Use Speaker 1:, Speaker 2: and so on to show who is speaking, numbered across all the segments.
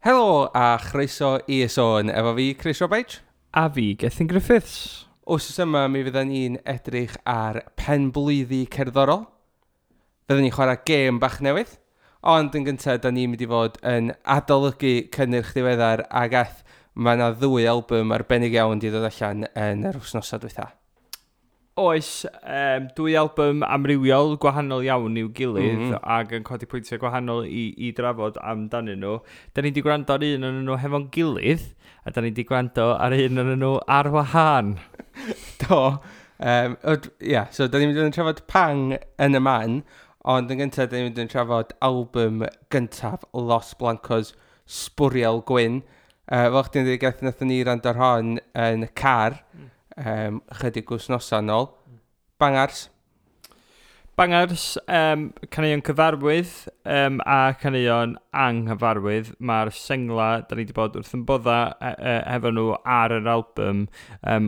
Speaker 1: Helo a chroeso i Y Sôn, efo fi Chris Roberts.
Speaker 2: A fi, Gethin Griffiths.
Speaker 1: Wsos yma mi fyddan ni'n edrych ar penblwyddi cerddorol. Fyddan ni'n chwarae gêm bach newydd. Ond yn gyntaf, da ni'n mynd i fod yn adolygu cynnyrch diweddar ag aeth mae yna ddwy album arbennig iawn di ddod allan yn yr wythnosau dwytha.
Speaker 2: Oes, dwy album amrywiol, gwahanol iawn i'w gilydd, ac yn codi pwyntiau gwahanol i drafod amdanyn nhw. Da ni wedi gwrando ar un o'n nhw hefo'n gilydd, a da ni wedi gwrando ar un o'n nhw ar wahân.
Speaker 1: Do. Yeah, so da ni'n mynd i fod yn trafod Pang yn y man, ond yn gyntaf da ni'n mynd i fod yn trafod album gyntaf Los Blancos, Sbwriel Gwyn. Fel chdi'n dweud, gath nathon ni rando ar hon yn y car, chydig wythnosau nôl. Bangars.
Speaker 2: Bangars, caneuon cyfarwydd a caneuon anghyfarwydd. Mae'r sengla, da ni wedi bod wrth yn bodda efo nhw ar yr album,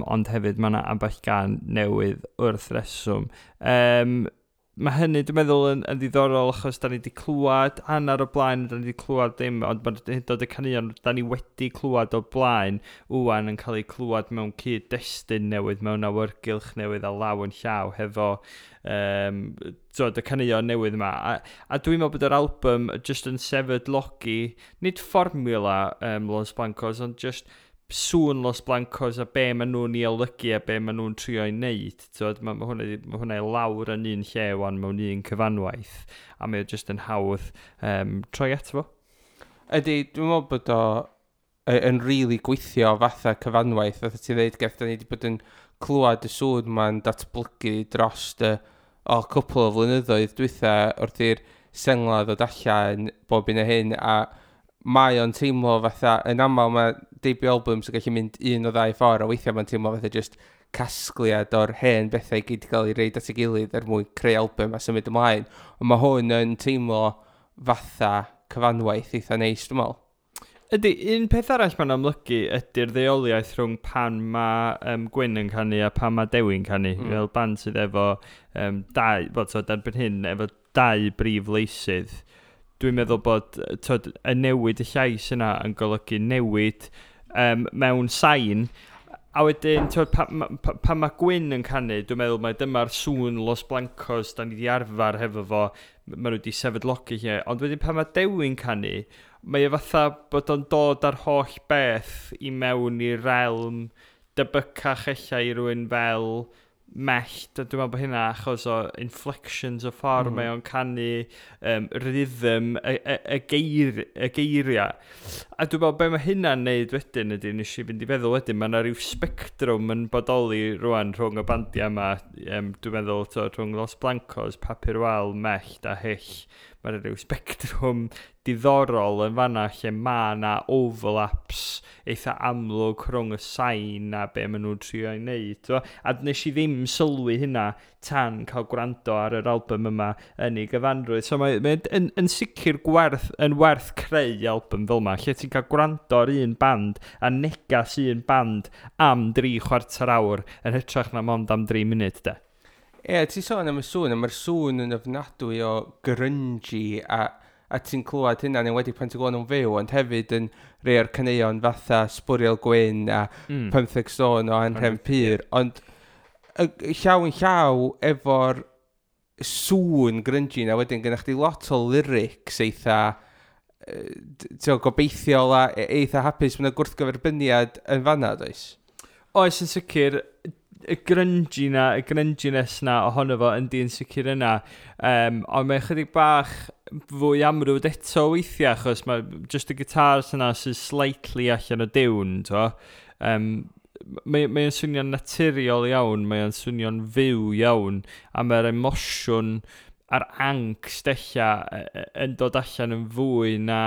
Speaker 2: ond hefyd mae yna ambell gan newydd wrth reswm. Mae hynny, dwi'n meddwl, yn ddiddorol achos da ni wedi clywed hanner o blaen, da ni wedi clywed ddim, ond mae'n hyd yn oed y caneuon da ni wedi clywed o blaen wwan yn cael eu clywed mewn cyd-destun newydd, mewn awyrgylch newydd a law yn llaw hefo y caneuon newydd yma. A dwi'n meddwl bod yr album just yn sefydlogi, nid fformula Los Blancos, ond just sŵn Los Blancos a be maen nhw'n ei olygu a be maen nhw'n trio ei wneud. Mae hwnna i lawr yn un lle wan mewn un cyfanwaith, a mae o just yn hawdd troi ato fo.
Speaker 1: Ydy, dwi'n meddwl bod o yn really gweithio fatha cyfanwaith. Fatha ti dweud, Geth, da ni wedi bod yn clywed y sŵn ma'n datblygu dros y cwpl o flynyddoedd dwytha wrth i'r sengla ddod allan bob un o hyn, a mae o'n teimlo fatha, yn aml mae debut albums yn gallu mynd un o ddau ffordd, a weithiau mae'n teimlo fatha just casgliad o'r hen bethau i gyd gael ei reid at ei gilydd er mwyn creu album a symud ymlaen. Ond mae hwn yn teimlo fatha cyfanwaith eitha neis, dwi'n meddwl.
Speaker 2: Ydy, un peth arall mae'n amlygu ydy'r ddeuoliaeth rhwng pan mae Gwyn yn canu a pan mae Dewi'n canu. Fel band sydd efo dau, wel, so, erbyn hyn, efo dau brif leisydd. Dwi'n meddwl bod y newid y llais yna yn golygu newid mewn sain. A wedyn, pan mae Gwyn yn canu, dwi'n meddwl mai dyma'r sŵn Los Blancos da ni wedi arfer hefo fo, maen nhw wedi sefydlogi lle. Ond wedyn pan mae Dewi'n canu, mae e fatha bod o'n dod ar holl beth i mewn i'r realm debycach ella i rywun fel Mellt, a dwi'n meddwl bod hynna achos o inflections o ffordd mae o'n canu, rhythm, y geiriau. A dwi'n meddwl be mae hynna'n neud wedyn ydy, nes i fynd i feddwl wedyn, mae yna rhyw spectrwm yn bodoli rwan rhwng y bandiau yma, dwi'n meddwl rhwng Los Blancos, Papur Wal, Mellt a Hyll. Mae yna rhyw spectrwm diddorol yn fanna lle mae yna overlaps eitha amlwg rhwng y sain a be maen nhw'n trio ei wneud. A nes i ddim sylwi hynna tan cael gwrando ar yr album yma yn ei gyfanrwydd. So mae yn sicr yn werth creu album fel yma, lle ti'n cael gwrando ar un band a negas un band am 3/4 awr yn hytrach na mond am 3 munud, de.
Speaker 1: Ie, ti'n sôn am y sŵn, a mae'r sŵn yn ofnadwy o grungy, a ti'n clywed hynna, yn enwedig pan ti'n glywed nhw'n fyw, ond hefyd yn rhai o'r caneuon fatha Sbwriel Gwyn a 15 Stone o Anhrefn Pur, ond llaw yn llaw efo'r sŵn grungy na wedyn gynna'ch chdi lot o lyrics eitha gobeithiol a eitha hapus, mae'n gwrthgyferbyniad yn fanna, does?
Speaker 2: Oes, yn sicr, y grungy na, y grunginess na ohono fo yndi yn sicr yna. Ond mae chydig bach fwy amrwd eto weithiau, achos mae just y guitars yna sy'n slightly allan o diwn, to. Mae'n swnio'n naturiol iawn, mae'n swnio'n fyw iawn, a mae'r emosiwn a'r angst ella yn dod allan yn fwy na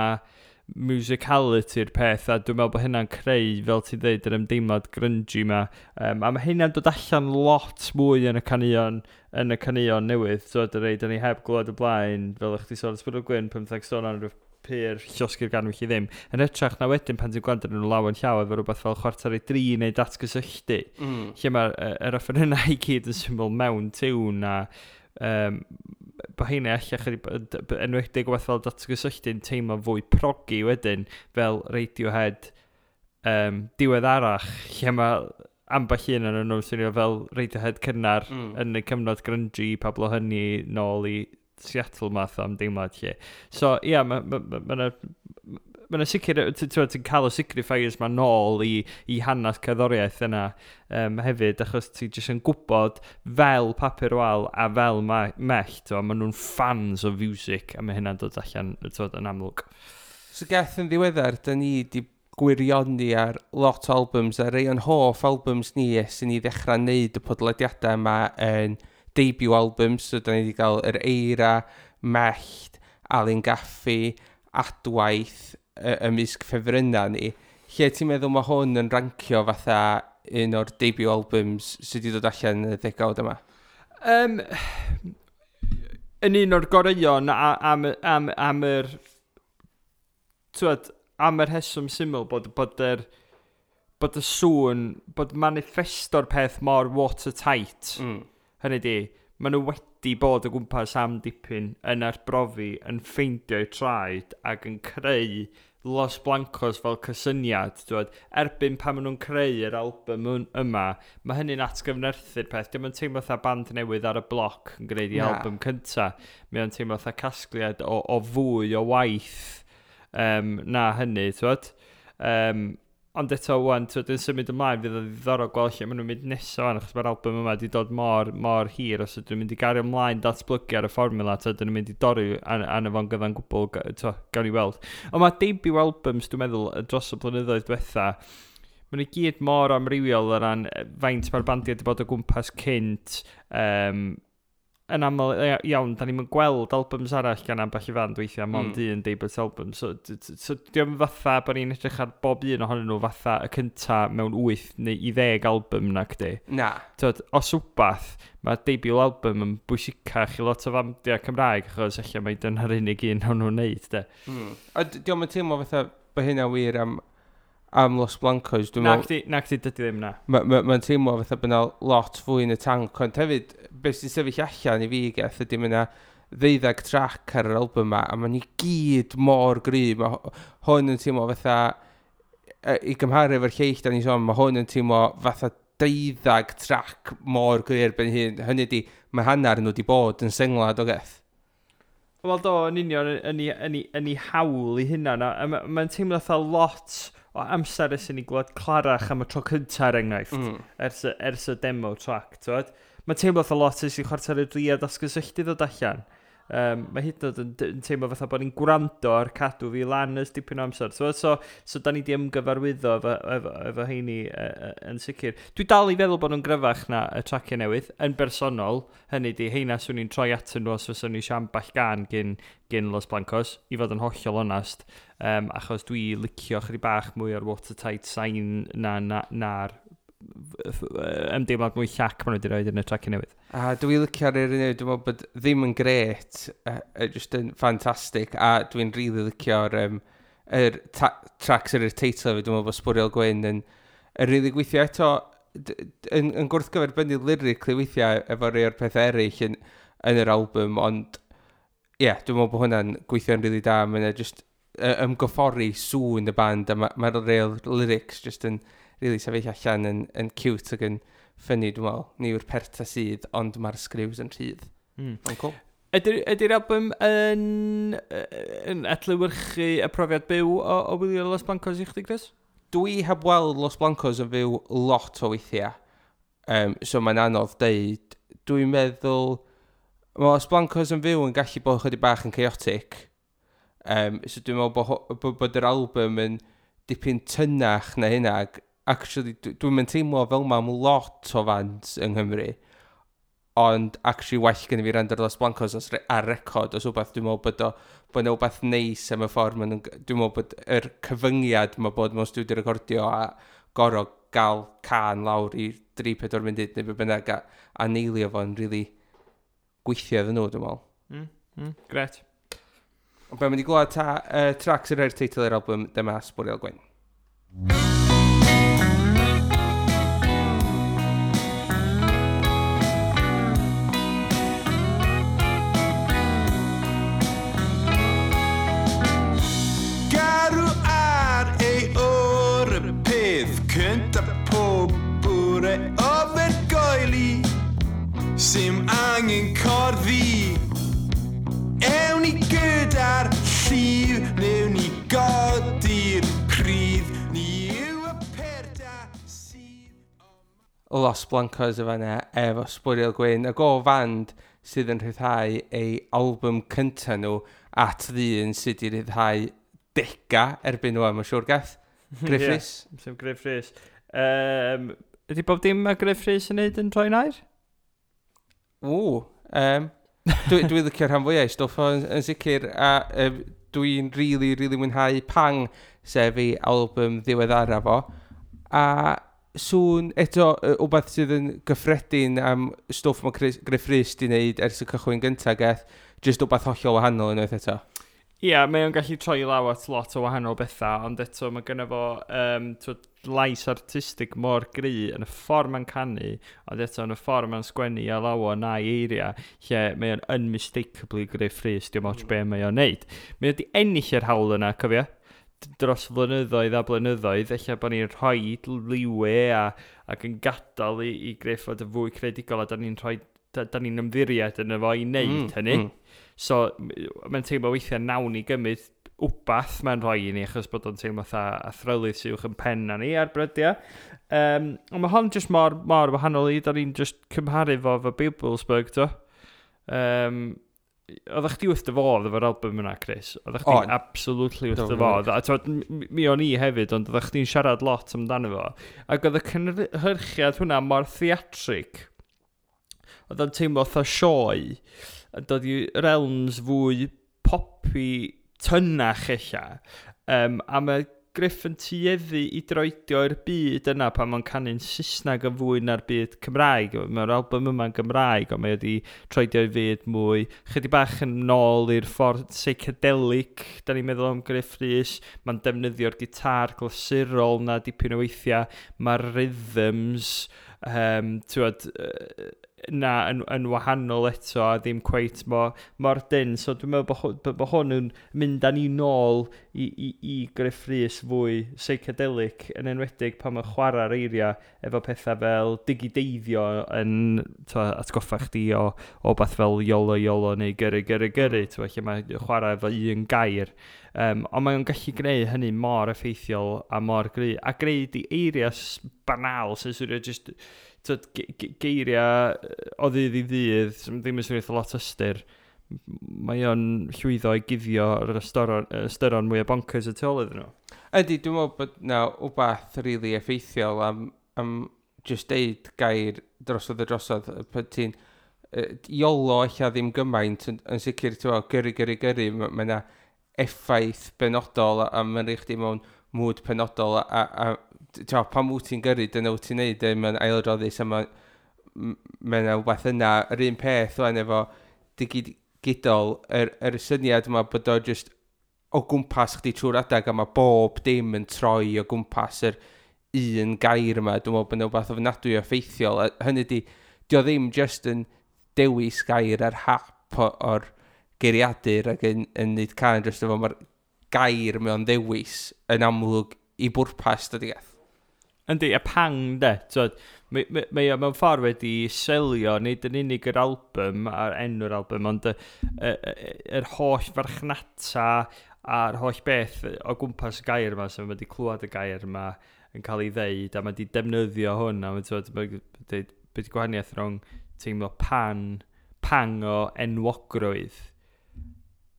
Speaker 2: musicality'r peth, a dwi'n meddwl bod hynna'n creu, fel ti'n dweud, yr ymdeimlad grungy ma. A mae hynna'n dod allan lot mwy yn y caneuon newydd, so dy rei, da ni heb glywed y blaen, fel ych chi sôn, Sbwriel Gwyn, 15 Stone ar Pur, Llosgi'r Ganwyll i ddim. Yn hytrach na wedyn pan ti'n gwrando arnyn nhw law yn llaw efo rhywbeth fel 2:45 neu Datgysylltu, lle mae'r offerynnau i gyd yn syml mewn tiwn a Bo heina ella chydig, enwedig wbeth fel Datgysylltu'n teimlo fwy proggy wedyn, fel Radiohead diweddarach, lle mae ambell un yn nhw'n swnio fel Radiohead cynnar yn y cyfnod grungy, Pablo Honey nôl i Seattle math o ymdeimlad lle. So, ia, yeah, mae ma, ma 'na sicr, ti'n cael y signifiers ma nôl i hanes cerddoriaeth yna hefyd, achos ti jyst yn gwybod fel Papur Wal a fel Mellt, ma nhw'n fans o music, a mae hynna'n dod allan, t'wod, yn amlwg.
Speaker 1: So Geth, yn ddiweddar, da ni di gwirioni ar lot o albums, a rei o'n hoff albums ni ers i ni ddechrau wneud y podlediadau yma yn debut albums, so da ni wedi cael Yr Eira, Mellt, Alun Gaffi, Adwaith, ymysg ffefrynnau ni. Lle ti'n meddwl mae hwn yn rancio fatha un o'r debut albums sydd wedi dod allan yn y ddegawd yma?
Speaker 2: Yn un o'r goreuon am yr, t'wod, am yr rheswm syml bod y sŵn, bod manifesto'r peth mor watertight. Hynny di, maen nhw wedi bod o gwmpas am dipyn yn arbrofi, yn ffeindio'u traed ac yn creu Los Blancos fel cysyniad. T'wod, erbyn pan maen nhw'n creu yr album yma, mae hynny'n atgyfnerthu'r peth. Dim yn teimlo fatha band newydd ar y bloc yn gwneud i
Speaker 1: Na.
Speaker 2: album cynta. Mae o'n teimlo fatha casgliad o fwy o waith na hynny, t'wod. Ond eto, wan, t'wod, yn symud ymlaen, fydd o'n ddiddorol gweld lle maen nhw'n mynd nesaf wan, achos mae'r album yma wedi dod mor, mor hir, os ydyn nhw'n mynd i gario ymlaen datblygu ar y fformula, t'wod, ydyn nhw'n mynd i dorri arno fo'n gyfan gwbl, t'wod, gawn ni weld. Ond mae debut albums, dwi'n meddwl, dros y blynyddoedd diwetha, maen nhw gyd mor amrywiol o ran faint mae'r bandiau wedi bod o gwmpas cynt, yn aml iawn, da ni'n gweld albums arall gan ambell i fand weithiau, mond un debut album. So diolch fatha bod ni'n edrych ar bob un ohonyn nhw fatha y cynta mewn 8 neu i 10 album na cdi.
Speaker 1: Na.
Speaker 2: T'wod, os wbath, mae debut album yn bwysicach i lot o fandiau Cymraeg, achos ella mai dyna'r unig un o'n nhw'n neud, de.
Speaker 1: A diolch yn teimlo fatha bod hynna wir am Los Blancos. Dwi'n
Speaker 2: Na
Speaker 1: meddwl,
Speaker 2: chdi, na chdi, dydy ddim na.
Speaker 1: Mae'n ma teimlo fatha bod yna lot fwy yn y tank, ond hefyd, beth sy'n sefyll allan i fi, Geth, ydy mae yna 12 track ar yr album yma, a ma'n i gyd mor gry. Mae hwn yn teimlo fatha, i gymharu efo'r lleill da ni'n sôn, mae hwn yn teimlo fatha 12 track mor gry erbyn hyn. Hynny di, mae hanner nhw wedi bod yn sengla, do Geth?
Speaker 2: Wel do, yn union, yn ei hawl i hynna. A mae'n teimlo fatha lot o amser ers i ni glwad Clarach am y tro cynta, er enghraifft, ers y demo track, t'wod? Mae'n teimlo fatha lot ers i Chwarter i Dri a Datgysylltu ddod allan. Mae hyd yn oed yn teimlo fatha bod ni'n gwrando ar Cadw Fi Lan ers dipyn o amser. So da ni di ymgyfarwyddo efo heini yn sicr. Dwi dal i feddwl bod nhw'n gryfach na y traciau newydd, yn bersonol. Hynny di, heina swn i'n troi atyn nhw os fyswn ni eisiau ambell gan gyn Los Blancos, i fod yn hollol onast. Achos dwi licio chydig bach mwy o'r watertight sain na'r ymdeimlad mwy llac maen nhw wedi rhoi yn y traciau newydd.
Speaker 1: A dwi licio'r un newydd, dwi'n meddwl bod ddim yn gret, just yn ffantastig, a dwi'n really licio'r yr tracks ar yr teitl fi, dwi'n meddwl bod Sbwriel Gwyn yn really gweithio eto, yn gwrthgyferbynnu lyrically weithiau efo rhai o'r pethau eraill yn yr album, ond ie, yeah, dwi'n meddwl bod hwnna'n gweithio'n really da, mae'n just ymgoffori sŵn y band, a mae'r real lyrics just yn really sefyll allan yn cute ac yn funny, dwi'n meddwl. Ni yw'r perta sydd, ond mae'r sgriws yn rhydd. Ond cool.
Speaker 2: Ydy'r album yn adlewyrchu y profiad byw o wylio Los Blancos i chdi, Chris?
Speaker 1: Dwi heb weld Los Blancos yn fyw lot o weithiau. So mae'n anodd deud. Dwi'n meddwl... Mae Los Blancos yn fyw yn gallu bod chydig bach yn chaotic. So dwi'n meddwl bod yr album yn dipyn tynach na hynna. Ac actually, dwi'n mynd teimlo fel ma am lot o fans yng Nghymru. Ond actually well gen i fi rando ar Los Blancos os ar record os wbeth. Dwi'n meddwl bod 'na wbeth neis am y ffordd ma' nhw'n dwi'n meddwl bod yr cyfyngiad ma' bod mewn studio recordio a gorfod gael can lawr i 3-4 munud neu be bynnag a neilio fo'n really gweithio iddyn nhw, dwi'n meddwl.
Speaker 2: Gret.
Speaker 1: Ond be, mynd i glywed ta, tracks yn rhoi'r teitl i'r album, dyma Sbwriel Gwyn. Los Blancos y fanna efo Sbwriel Gwyn, ac o fand sydd yn rhyddhau ei album cyntaf nhw at ddyn sydd wedi rhyddhau dega erbyn nhw, mae'n siŵr gath. Gruff Rhys.
Speaker 2: Yeah, sef Gruff Rhys. Ydy bob dim mae Gruff Rhys yn neud yn troi'n air?
Speaker 1: Ww. Dwi licio rhan fwyaf i stwff o yn sicr, a dwi'n really, really mwynhau Pang, sef ei album ddiweddara fo. A sŵn eto, wbeth sydd yn gyffredin am stwff mae Gruff Rhys di wneud ers y cychwyn gyntaf gath, jyst wbeth hollol wahanol unwaith eto.
Speaker 2: Ie, yeah, mae o'n gallu troi law at lot o wahanol bethau, ond eto mae gynno fo lais artistig mor gry yn y ffordd mae'n canu, ond eto yn y ffordd mae'n sgwennu a lawon na'i eiriau, lle mae o'n unmistakably Gruff Rhys, diolch ots be mae o'n neud. Mae wedi ennill yr hawl yna, cofio? Dros flynyddoedd a blynyddoedd, ella bod ni'n rhoi leeway ac yn gadael i Gruff fod yn fwy creadigol, a da ni'n rhoi da ni'n ymddiried yn efo i wneud hynny. So, mae'n teimlo weithiau nawn ni gymryd wbath mae'n rhoi i ni, achos bod o'n teimlo fatha athrylith sy'n uwch yn pen na ni ar brydiau. Ond mae hon jyst mor, mor wahanol i, da ni'n just cymharu fo efo Bibelsberg, to. Oeddech chdi wrth dy fodd efo'r album yna, Chris? Oeddech chdi absolutely wrth dy fodd. A t'wod, mi o'n i hefyd, ond oeddech chdi'n siarad lot amdano fo. Ac oedd y cynhyrchiad hwnna mor theatrig. Oedd o'n teimlo fatha sioe, a dod i realms fwy poppy tynach ella. A mae Gruff yn tueddu i droedio i'r byd yna pan mae'n canu'n Saesneg yn fwy na'r byd Cymraeg. Mae'r album yma'n Gymraeg, ond mae wedi troedio i fyd mwy. Chydig bach yn nôl i'r ffordd psychedelic, da ni'n meddwl am Gruff Rhys. Mae'n defnyddio'r gitar glasurol na dipyn o weithiau. Mae'r rhythms, t'wod, na yn wahanol eto a ddim cweit mor dyn. So dwi'n meddwl bod hwn yn mynd â ni nôl i Gruff Rhys fwy psychedelic, yn enwedig pan mae'n chwarae'r eiriau efo pethau fel digideiddio yn atgoffa chdi o beth fel iolo iolo neu gyrru gyrru gyrru, lle mae'n chwarae efo un gair. Ond mae'n gallu gwneud hynny mor effeithiol a mor gry. A gwneud i eiriau banal sy'n swnio just geiriau o ddydd i ddydd, sy'n ddim yn swnio eitha lot ystyr. Mae o'n llwyddo i guddio yr ystyron mwy o bonkers y tu ôl iddyn nhw.
Speaker 1: Ydy, dwi'n meddwl bod na wbath really effeithiol am just deud gair drosodd a drosodd. Pan ti'n iolo ella ddim gymaint, yn sicr, ti'n meddwl, gyrru, gyrru, gyrru, mae yna effaith benodol a mae'n rhaid chdi mewn mood penodol a ti'n meddwl, pan wyt ti'n gyrru, dyna wyt ti'n neud, mae'n ailadroddus a mae yna wbath yna, yr un peth wan efo digidol, yr syniad yma bod o just o gwmpas chdi trwy'r adag a mae bob dim yn troi o gwmpas yr un gair yma. Dwi'n meddwl bod yna wbath ofnadwy o effeithiol. A hynny di, di o ddim just yn dewis gair ar hap o'r geiriadur ac yn neud can dros efo, mae'r gair mewn ddewis yn amlwg i bwrpas, dydy gath.
Speaker 2: Yndi, y pang de, t'wod, mae o mewn ffordd wedi selio, nid yn unig yr album a'r enw'r album, ond yr holl farchnata a'r holl beth o gwmpas y gair yma, so mae wedi clywed y gair yma yn cael ei ddeud, a mae wedi defnyddio hwn, a mae t'wod, mae dweud, beth gwahaniaeth rhwng teimlo pang o enwogrwydd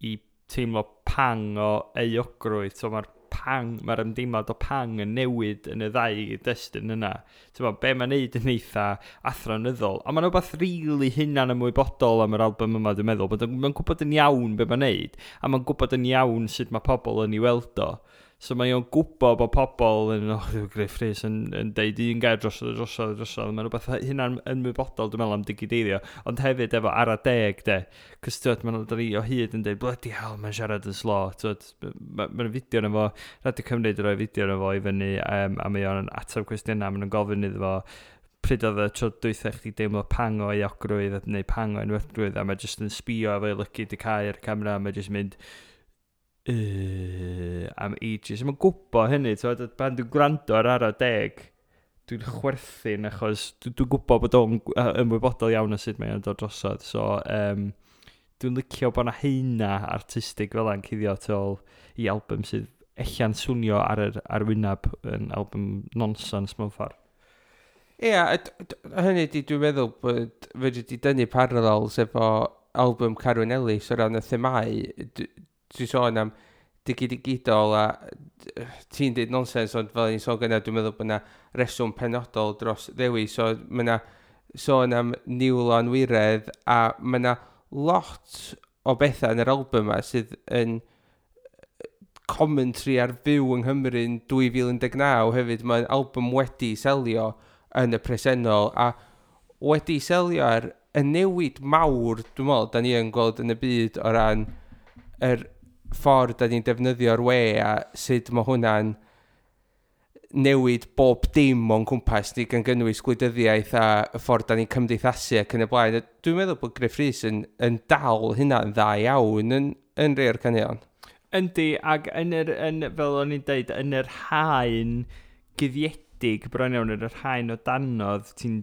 Speaker 2: i teimlo pang o euogrwydd. So mae'r ymdeimlad o pang yn newid yn y ddau destun yna. Ti'n gwbod, be mae'n neud yn eitha athronyddol. Ond mae'n rhywbeth rili hunan ymwybodol am yr album yma, dwi'n meddwl. Bod mae'n gwybod yn iawn be mae'n neud, a mae'n gwybod yn iawn sut mae pobl yn ei weld o. So mae o'n gwybod bod pobl yn, oh, Gruff Rhys yn deud un gair drosodd, drosodd, drosodd. Mae'n rhywbeth hunan ymwybodol, dwi'n meddwl, am digideiddio. Ond hefyd efo ara deg, de. Cos, ti'n gwbod, ma'n ni o hyd yn deud, bloody hell, mae'n siarad yn slo. Ti'n gwbod, mae'n fideo yna fo, Radio Cymru wedi rhoi fideo yna fo i fyny, a mae o'n ateb cwestiynau, maen nhw'n gofyn iddo fo, pryd oedd y tro dwytha chdi deimlo pang o euogrwydd neu pang o enwogrwydd, a mae jyst yn sbio efo ei lygid i cau ar y camera, a mae jyst mynd am ages. Mae'n gwybod hynny, ti'n gwbod, pan dwi'n gwrando ar ara deg, dwi'n chwerthin achos dwi'n gwybod bod o'n ymwybodol iawn o sut mae o'n dod drosodd. So, dwi'n licio bod 'na heina artistig fel yna'n cuddio tu ôl i album sydd ella'n swnio ar yr arwyneb yn album nonsense mewn ffordd.
Speaker 1: Ie, yeah, hynny di dwi'n meddwl bod fedri di dynnu parallels efo album Carwyn Ellis o ran y themau. Dwi'n sôn am digidol a ti'n dweud nonsens, ond fel ni'n sôn gyna, dwi'n meddwl bod yna reswm penodol dros ddewis. So mae yna sôn am niwl o anwiredd a mae yna lot o bethau yn yr album yma sydd yn commentary ar fyw yng Nghymru yn 2019 hefyd. Mae'n album wedi selio yn y presennol a wedi selio ar y newid mawr, dwi'n meddwl, da ni yn gweld yn y byd o ran yr ffordd da ni'n defnyddio'r we a sut mae hwnna'n newid bob dim o'n cwmpas ni, gan gynnwys gwleidyddiaeth a y ffordd da ni'n cymdeithasu ac yn y blaen. Dwi'n meddwl bod Gruff Rhys yn dal hynna'n dda iawn yn rhai o'r caneuon.
Speaker 2: Yndi, ac yn yr, yn, fel o'n i'n deud, yn yr haen guddiedig bron iawn, yn yr haen o danodd, ti'n,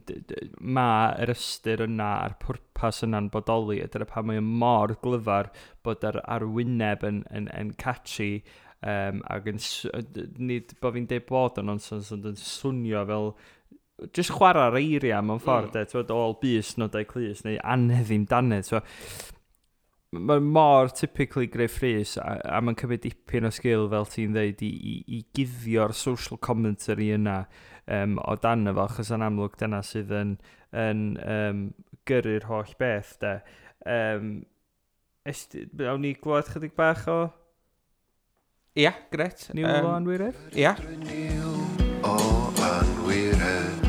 Speaker 2: ma yr ystyr yna a'r pwrpas yna'n bodoli, a dyna pam mae o mor glyfar bod yr arwyneb yn catchy, ac yn, nid bod fi'n deud bod o'n nonsens, ond yn swnio fel just chwarae'r eiriau mewn ffordd, de, ti'n ôl bys nodau clust, neu anhedd ddim dannedd, so mae mor typically Gruff Rhys a mae'n cymryd dipyn o sgil, fel ti'n dweud, i guddio'r social commentary yna o dan efo, achos yn amlwg dyna sydd yn gyrru'r holl beth, de. Awn ni glywed chydig bach o
Speaker 1: Ia, gret.
Speaker 2: Niwl o Anwiredd?
Speaker 1: Ia.
Speaker 3: Niwl o anwiredd.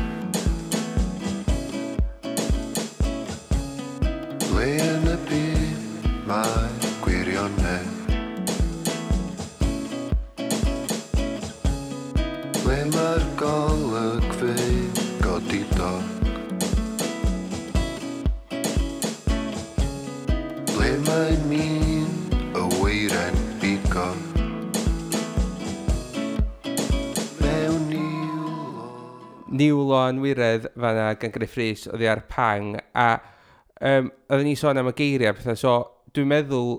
Speaker 3: Ble yn y byd mae gwirionedd? Ble mae'r golygfeydd godidog? Ble mae min y weiren bigog? Mewn niwl o
Speaker 1: Niwl o Anwiredd fanna gan Gruff Rhys oddi ar Pang, a oedden ni sôn am y geiriau a pethau, so dwi'n meddwl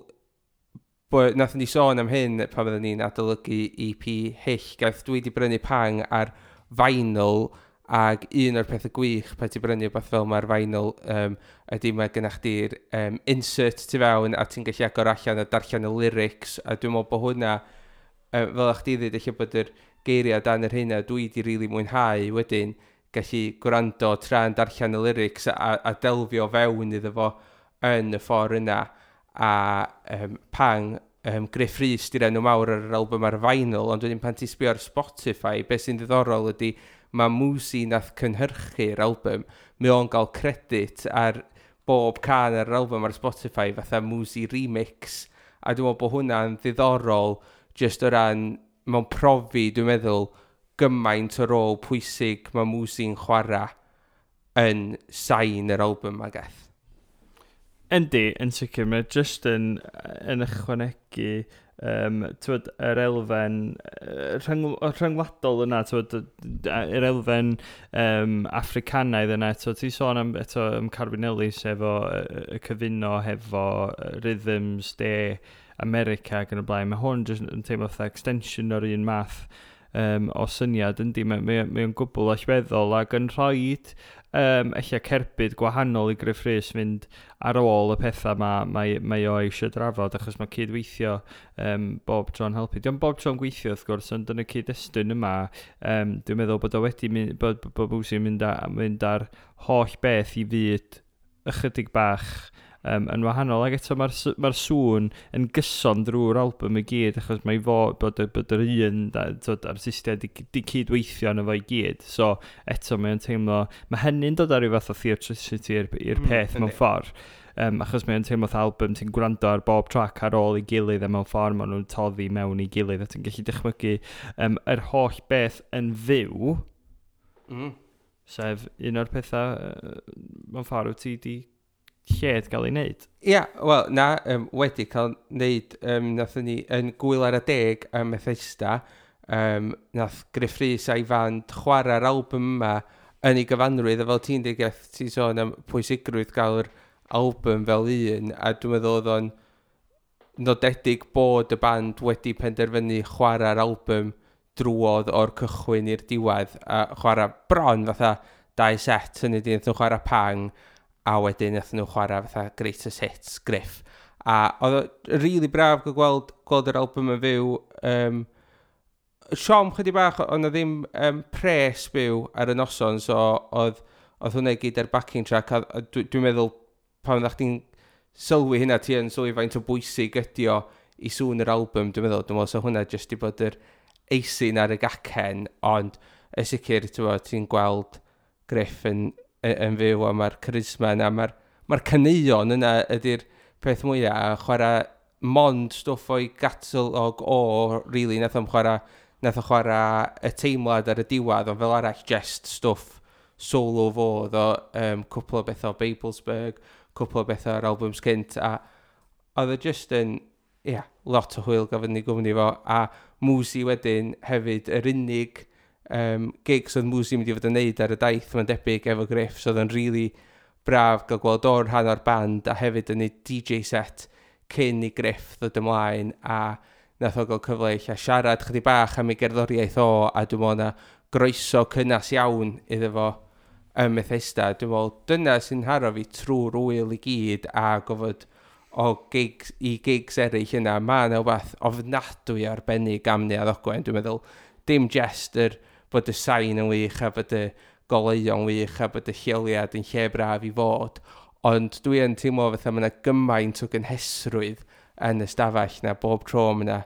Speaker 1: bod nathon ni sôn am hyn pan oedden ni'n adolygu EP Hyll. Gaeth dwi wedi brynu Pang ar vinyl, ac un o'r pethau gwych pan ti'n brynu rhywbeth fel mae'r vinyl ydy mae gennych chdi'r insert tu fewn a ti'n gallu agor allan a darllen y lyrics, a dwi'n meddwl bod hwnna, fel a'ch chdi ddweud, eich bod yr geiriau dan yr hynna dwi wedi rili mwynhau wedyn gallu gwrando tra'n darllen y lyrics a delfio fewn iddo fo yn y ffordd yna. A Pang, Gruff Rhys di'r enw mawr ar yr album ar vinyl, ond wedyn pan ti'n sbio ar Spotify, beth sy'n ddiddorol ydy mae Mwzi nath cynhyrchu'r album, mae o'n gael credit ar bob can ar yr album ar Spotify fatha Mwzi Remix, a dwi'n meddwl bod hwnna'n ddiddorol just o ran mewn profi, dwi'n meddwl, gymaint o rôl pwysig mae Mwzi'n chwarae yn sain yr album ma gath.
Speaker 2: Yndi, yn sicr, mae just yn ychwanegu t'wod, yr elfen rhyngwladol yna, t'wod, yr elfen Africanaidd yna, eto, ti'n sôn am, eto, am Carwyn Ellis efo y cyfuno hefo rhythms de America ac yn y blaen. Mae hwn jyst yn teimlo fatha extension o'r un math o syniad, yndi, mae o'n gwbl allweddol ac yn rhoi ella cerbyd gwahanol i Gruff Rhys fynd ar ôl y pethau mae o eisiau drafod, achos mae cydweithio bob tro'n helpu. Dio'm bob tro'n gweithio wrth gwrs, ond yn y cyd-destun yma, dwi'n meddwl bod o wedi mynd, bod Mwzi'n mynd ar holl beth i fyd ychydig bach yn wahanol. Ac eto mae'r sŵn yn gyson drwy'r album i gyd, achos mae fo bod yr un t'wod, artistiaid di cydweithio yno fo i gyd. So eto mae'n teimlo, mae hynny'n dod ar ryw fath o theatricity i'r peth mewn ffordd. Achos mae'n teimlo fatha album ti'n gwrando ar bob track ar ôl ei gilydd, a mewn ffordd maen nhw'n toddi mewn i gilydd, a ti'n gallu dychmygu yr holl beth yn fyw, sef un o'r pethau mewn ffordd wyt ti di lled gael ei wneud.
Speaker 1: Ia, wel, na, wedi cael wneud, nathon ni yn Gwyl ar y Deg ym Methesda, nath Gruff Rhys a'i fand chwarae'r album yma yn ei gyfanrwydd, a fel ti'n dweud, Geth, ti'n sôn am pwysigrwydd gael yr album fel un, a dwi'n meddwl oedd o'n nodedig bod y band wedi penderfynu chwarae'r album drwodd o'r cychwyn i'r diwedd, a chwarae bron fatha dau set, hynny di, nath nhw chwarae Pang, a wedyn nath nhw chwarae fatha Greatest Hits Griff. A oedd o really braf gael gweld yr album yn fyw. Siom chydig bach, oedd na ddim pres byw ar y noson, so oedd hwnna i gyd ar backing track, a dwi'n meddwl pan oeddach chdi'n sylwi hynna, ti yn sylwi faint o bwysig ydi o i sŵn yr album, dwi'n meddwl so hwnna jyst i bod yr icing ar y gacen, ond y sicr, ti'n gweld Griff yn fyw a mae'r charisma yna, mae'r caneuon yna ydy'r peth mwyaf, a chwarae mond stwff o'i gatalog o, really, nath o chwarae y teimlad ar y diwedd, ond fel arall just stwff solo fo, oedd o cwpl o bethau o Babelsberg, cwpl o bethau o'r albums cynt, a oedd o just yn, ie, yeah, lot o hwyl gafon ni gwmni fo, a Mwzi wedyn hefyd, yr unig gigs oedd Mwzi mynd i fod yn neud ar y daith, mae'n debyg efo Griff, so oedd o'n really braf gael gweld o'r rhan o'r band, a hefyd yn ei DJ set cyn i Griff ddod ymlaen, a nath o gael cyfle i siarad chydig bach am ei gerddoriaeth o, a dwi'n meddwl na groeso cynnas iawn iddo fo ym Methesda. Dwi'n meddwl dyna sy'n haro fi trwy'r wyl i gyd a gofod o gigs, i gigs eraill yna. Mae yna wbath ofnadwy arbennig am Neuadd Ogwen. Dwi'n meddwl dim jest yr bod y sain yn wych a bod y goleuo'n wych a bod y lleoliad yn lle braf i fod, ond dwi yn teimlo fatha mae yna gymaint o gynhesrwydd yn y stafell na bob tro mae yna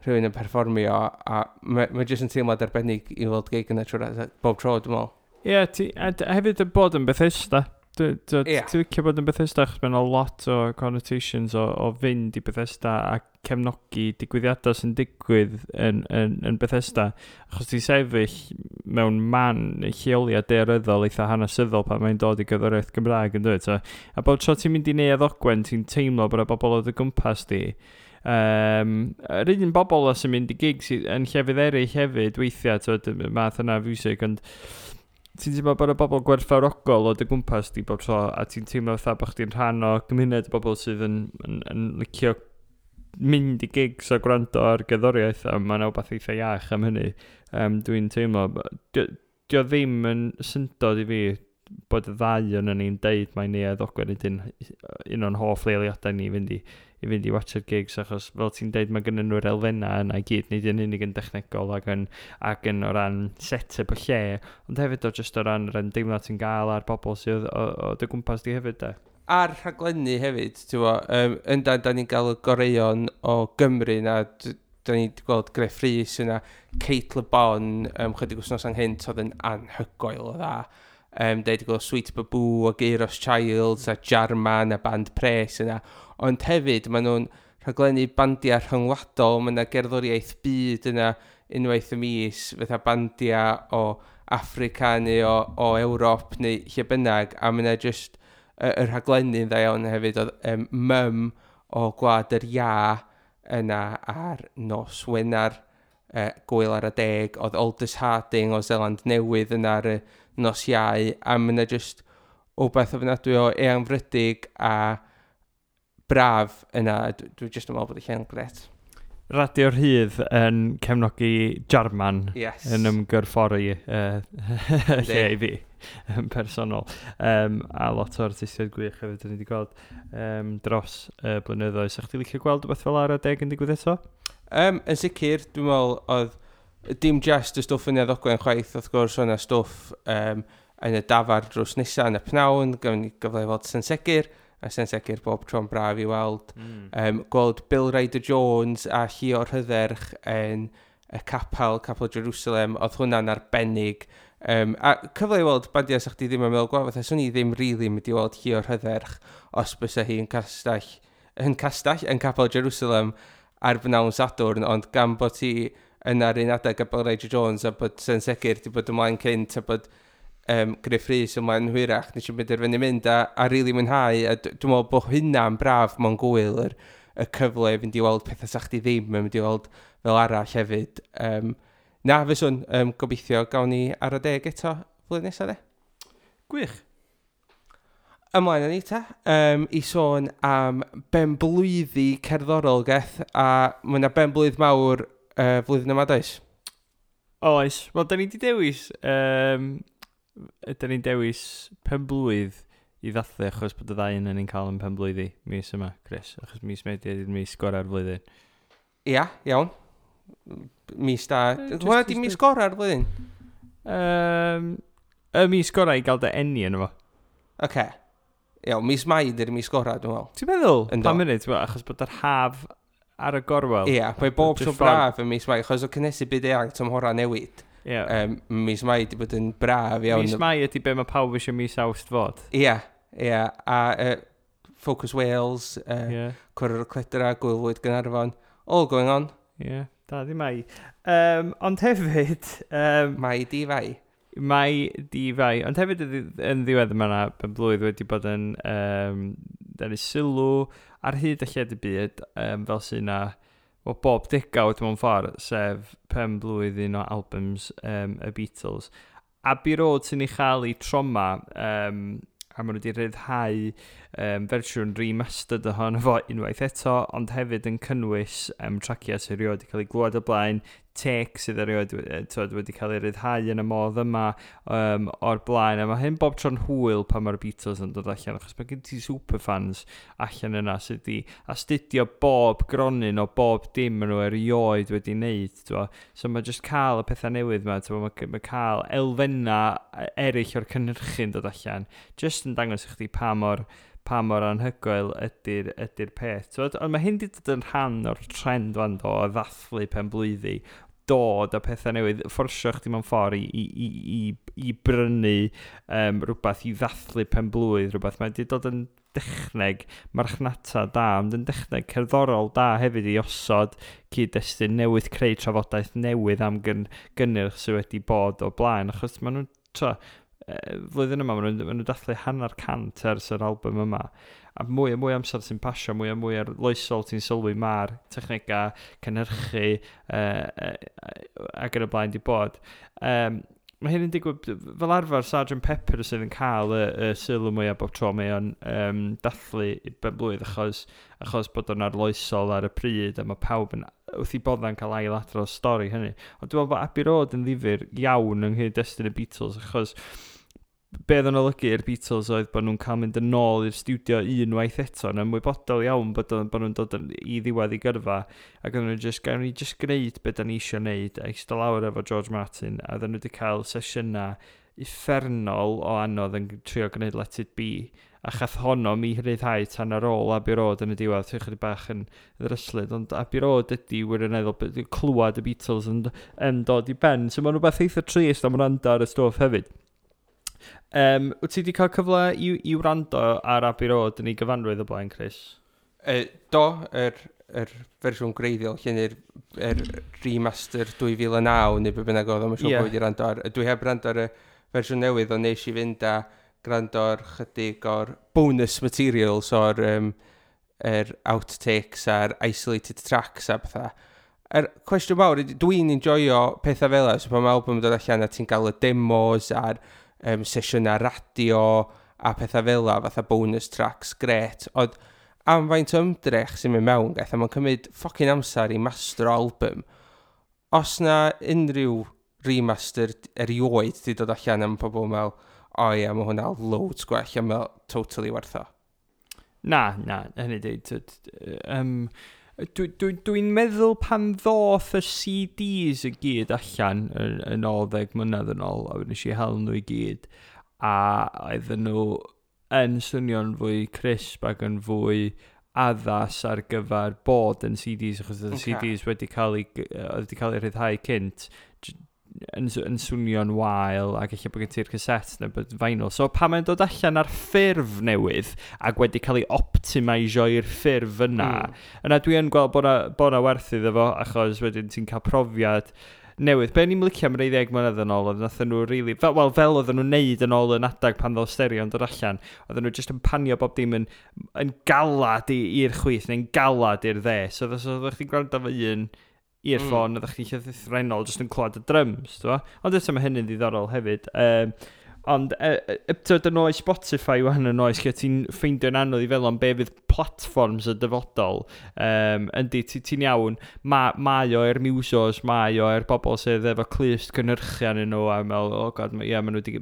Speaker 1: rhywun yn perfformio, a mae jyst yn teimlad arbennig i weld gig yna trwy'r bob tro, dwi'n meddwl.
Speaker 2: Ie, yeah, a hefyd y bod yn Bethesda. Ti'n licio bod yn Bethesda, achos mae'n lot o connotations o fynd i Bethesda a cefnogi digwyddiadau sy'n digwydd yn Bethesda. Achos ti'n sefyll mewn man lleoliad daearyddol eitha hanesyddol pan mae'n dod i gerddoriaeth Gymraeg yn dweud. So, a bob tro ti'n mynd i Neuadd Ogwen, ti'n teimlo bod y bobl o dy gwmpas di. Yr un bobl sy'n mynd i gigs yn llefydd eraill hefyd weithiau, t'wod, y math yna o fiwsig, ond ti'n teimlo bod y bobl gwerthfawrogol o dy gwmpas di bob tro, a ti'n teimlo fatha bod chdi'n rhan o gymuned o bobl sydd yn licio mynd i gigs a gwrando ar gerddoriaeth, a mae'n wbath eitha iach am hynny. Dwi'n teimlo, dio ddim yn syndod i fi bod y ddau yn ni'n deud mai Neuadd Ogwen ydy'n un o'n hoff leoliadau ni i fynd i watchad gigs, achos fel ti'n deud mae gynnu nhw'r elfennau yna i gyd, nid yn unig yn dechnegol ac yn o ran set-up y lle, ond hefyd o just o ran yr ymdeimlad ti'n gael a'r bobl sydd o dy gwmpas di hefyd de.
Speaker 1: A'r rhaglenni hefyd, ti'n bo, yndan, da ni'n gael y goreuon o Gymru na, da ni wedi gweld Gruff Rhys yna, Cate Le Bon, chydig wythnos anghynt, oedd yn anhygoel o dda. Da ni wedi gweld Sweet Baboo a Geiros Childs a Jarman a Band Pres yna. Ond hefyd, maen nhw'n rhaglennu bandiau rhyngwladol, mae yna gerddoriaeth byd yna unwaith y mis, fatha bandiau o Affrica neu o Ewrop neu lle bynnag, a mae yna just y rhaglenni'n dda iawn hefyd. Oedd Mum o Gwlad yr Ia yna ar nos Wener, Gwyl ar y Deg, oedd Aldous Harding o Zeland Newydd yna ar y nos Iau, a mae yna just wbeth ofnadwy o eangfrydig a braf yna. Dwi jyst yn meddwl bod y lle'n gret.
Speaker 2: Radio Rhydd yn cefnogi Jarman yn ymgyrffori lle i fi yn personol. A lot o artistiaid gwych hefyd dyn ni wedi gweld dros y blynyddoedd. Sa chdi licio gweld rhywbeth fel ar y deg yn digwydd eto?
Speaker 1: Yn sicr, dwi'n meddwl oedd dim just y stwff yn Neuadd Ogwen chwaith, wrth gwrs, o'na stwff yn y dafar drws nesaf yn y pnawn, gafon ni gyfle i weld Sen Segur, a Sen Segur bob tro'n braf i weld. Gweld Bill Ryder Jones a Llio Rhydderch yn y capel, Capel Jerusalem, oedd hwnna'n arbennig. A cyfle i weld bandiau sa chdi ddim yn meddwl gweld, fatha, swn i ddim really mynd i weld Llio Rhydderch os bysa hi yn castell, yn Capel Jerusalem ar bnawn Sadwrn, ond gan bod ti yna'r un adeg a Bill Ryder Jones a bod Sen Segur di bod ymlaen cynt a bod Gruff Rhys ymlaen hwyrach, nes i benderfynu mynd a rili mwynhau, a dwi'n meddwl bod hynna'n braf mewn gwyl, y cyfle i fynd i weld pethau sa chdi ddim yn mynd i weld fel arall hefyd. Na, fyswn, gobeithio gawn ni ar y deg eto flwyddyn nesaf de.
Speaker 2: Gwych.
Speaker 1: Ymlaen â ni ta, i sôn am benblwyddi cerddorol geth, a mae yna benblwydd mawr flwyddyn yma, does?
Speaker 2: Oes. Wel, da ni wedi dewis Ydyn ni'n dewis penblwydd i ddathlu achos bod y ddau yn ni'n cael yn penblwyddi mis yma, Chris? Achos mis Medi ydy'r mis gorau'r flwyddyn.
Speaker 1: Ia, iawn. Mis da. Hwna di mis gorau'r flwyddyn?
Speaker 2: Y mis gorau i gael dy eni yn efo.
Speaker 1: Oce. Okay. Iawn, mis Mai ydy'r mis gorau, dwi'n meddwl.
Speaker 2: Ti'n meddwl? Pa munud, achos bod yr haf ar y gorwel.
Speaker 1: Ia, mae bob tro braf yn mis Mai, achos o cynnesu byd eang tymhora newid. Yeah. Mis Mai di bod yn braf iawn.
Speaker 2: Mis Mai ydy be mae pawb eisiau mis Awst fod.
Speaker 1: Ia, ia. A Focus Wales, Cwrdd y Cledra, Gwyl Fwyd Gaernarfon, all going on.
Speaker 2: Ie, yeah, da di Mai. Ond hefyd...
Speaker 1: Mai di fai.
Speaker 2: Mai di fai. Ond hefyd yn ddiwedd yma na, ben blwydd wedi bod yn denu sylw ar hyd y lled y byd, fel sy'n na, well, bob degawd mewn ffordd, sef pen blwydd un o albums y Beatles. Abbey Road sy'n ei chael ei troma, a maen nhw wedi rhyddhau fersiwn remastered ohono fo unwaith eto, ond hefyd yn cynnwys traciau sydd erioed wedi cael ei glywed o blaen, take sydd erioed wedi cael ei ryddhau yn y modd yma o'r blaen. A mae hyn bob tro'n hwyl pan mae'r Beatles yn dod allan, achos mae gen ti superfans allan yna sydd wedi astudio bob gronyn o bob dim maen nhw erioed wedi wneud. Twa. So mae jyst cael y pethau newydd yma, twa, mae cael elfennau eraill o'r cynhyrchu'n dod allan, jyst yn dangos i chdi pa mor anhygoel ydy'r peth. Twod? Ond mae hyn wedi dod yn rhan o'r trend fan do, o ddathlu penblwyddi, dod a pethau newydd, fforsio chdi mewn ffordd i brynu rhywbeth, i ddathlu penblwydd, rhywbeth. Mae wedi dod yn dechneg marchnata da, ond yn dechneg cerddorol da hefyd i osod cyd-destun newydd, creu trafodaeth newydd am gynnyrch sydd wedi bod o blaen, achos maen nhw'n flwyddyn yma, maen nhw dathlu 150 ers yr album yma. A mwy a mwy amser sy'n pasio, mwy a mwy arloesol ti'n sylwi mae'r technegau cynhyrchu ac yn y blaen di bod. Mae hyn yn digwydd, fel arfer Sgt Pepper sydd yn cael y sylw mwyaf bob tro mae o'n dathlu ben blwydd achos bod o'n arloesol ar y pryd a mae pawb yn wrth i bodda'n cael ailadrodd stori hynny. Ond dwi'n meddwl bod Abbey Road yn ddifyr iawn yng nghyd-destun y Beatles achos be oedd yn olygu i'r Beatles oedd bod nhw'n cael mynd yn ôl i'r stiwdio unwaith eto yn ymwybodol iawn bod nhw'n dod i ddiwedd i gyrfa ac oedden nhw just, gawn ni just gwneud be da ni eisiau gwneud a eistedd lawr efo George Martin a oedden nhw wedi cael sesiynau uffernol o anodd yn trio gwneud Let It Be a chath honno mi rhyddhau tan ar ôl Abbey Road yn y diwedd, ti'n chydig bach yn ddryslyd, ond Abbey Road ydy wirioneddol clywed y Beatles yn dod i ben, so mae'n rhywbeth eitha trist am wrando ar y stwff hefyd. Wyt ti wedi cael cyfle i wrando ar Abbey Road yn ei gyfanrwydd o blaen, Chris?
Speaker 1: Do, yr fersiwn gwreiddiol, lle yr remaster 2009 neu be bynnag oedd, mae'n siŵr bod wedi wrando ar. Dwi heb wrando ar y fersiwn newydd, ond nes i fynd a gwrando ar chydig o'r bonus materials o'r yr outtakes a'r isolated tracks a pethau. Yr cwestiwn mawr, dwi'n enjoyo pethau fel yna, so pan mae album yn dod allan a ti'n cael y demos a'r sesiynau radio a pethau fel yna, fatha bonus tracks, gret. Ond am faint o ymdrech sy'n mynd mewn, gaeth, a mae'n cymryd fucking amser i master album. Os na unrhyw remaster erioed di dod allan am pobl mewn, o ia, mae hwnna loads gwell, a mae'n totally werth o.
Speaker 2: Na, hynny di. Dwi'n meddwl pan ddoth y CDs i gyd allan yn ôl 10 mlynedd yn ôl, a nes i hel nhw i gyd, a oedden nhw yn swnio'n fwy crisp ac yn fwy addas ar gyfer bod yn CDs, achos oedd y CDs wedi cael ei rhyddhau cynt, yn swnio'n wael ac ella bod gen ti'r cassette neu bod vinyl. So pan mae'n dod allan ar ffurf newydd ac wedi cael ei optimisio i'r ffurf yna, yna dwi yn gweld bod na werth iddo fo, achos wedyn ti'n cael profiad newydd. Be ni'n licio am rei 10 mlynedd yn ôl, oedd nathon nhw really, fel oedden nhw'n neud yn ôl yn adag pan ddodd stereo'n dod allan, oedden nhw just yn panio bob dim yn galad i'r chwith neu'n galad i'r dde. So oeddech chdi'n gwrando efo un earphone, oeddech chdi'n llythrennol jyst yn clywed y drums, t'bo? Ond eto mae hynny'n ddiddorol hefyd. Ond, tyd, yn oes Spotify wan, yn oes lle ti'n ffeindio'n anodd i feddwl am be fydd platforms y dyfodol. Yndi, ti'n iawn, mae o i'r musos, mae o i'r bobl sydd efo clust cynhyrchu arnyn nhw, a meddwl, oh God, ie, maen nhw di,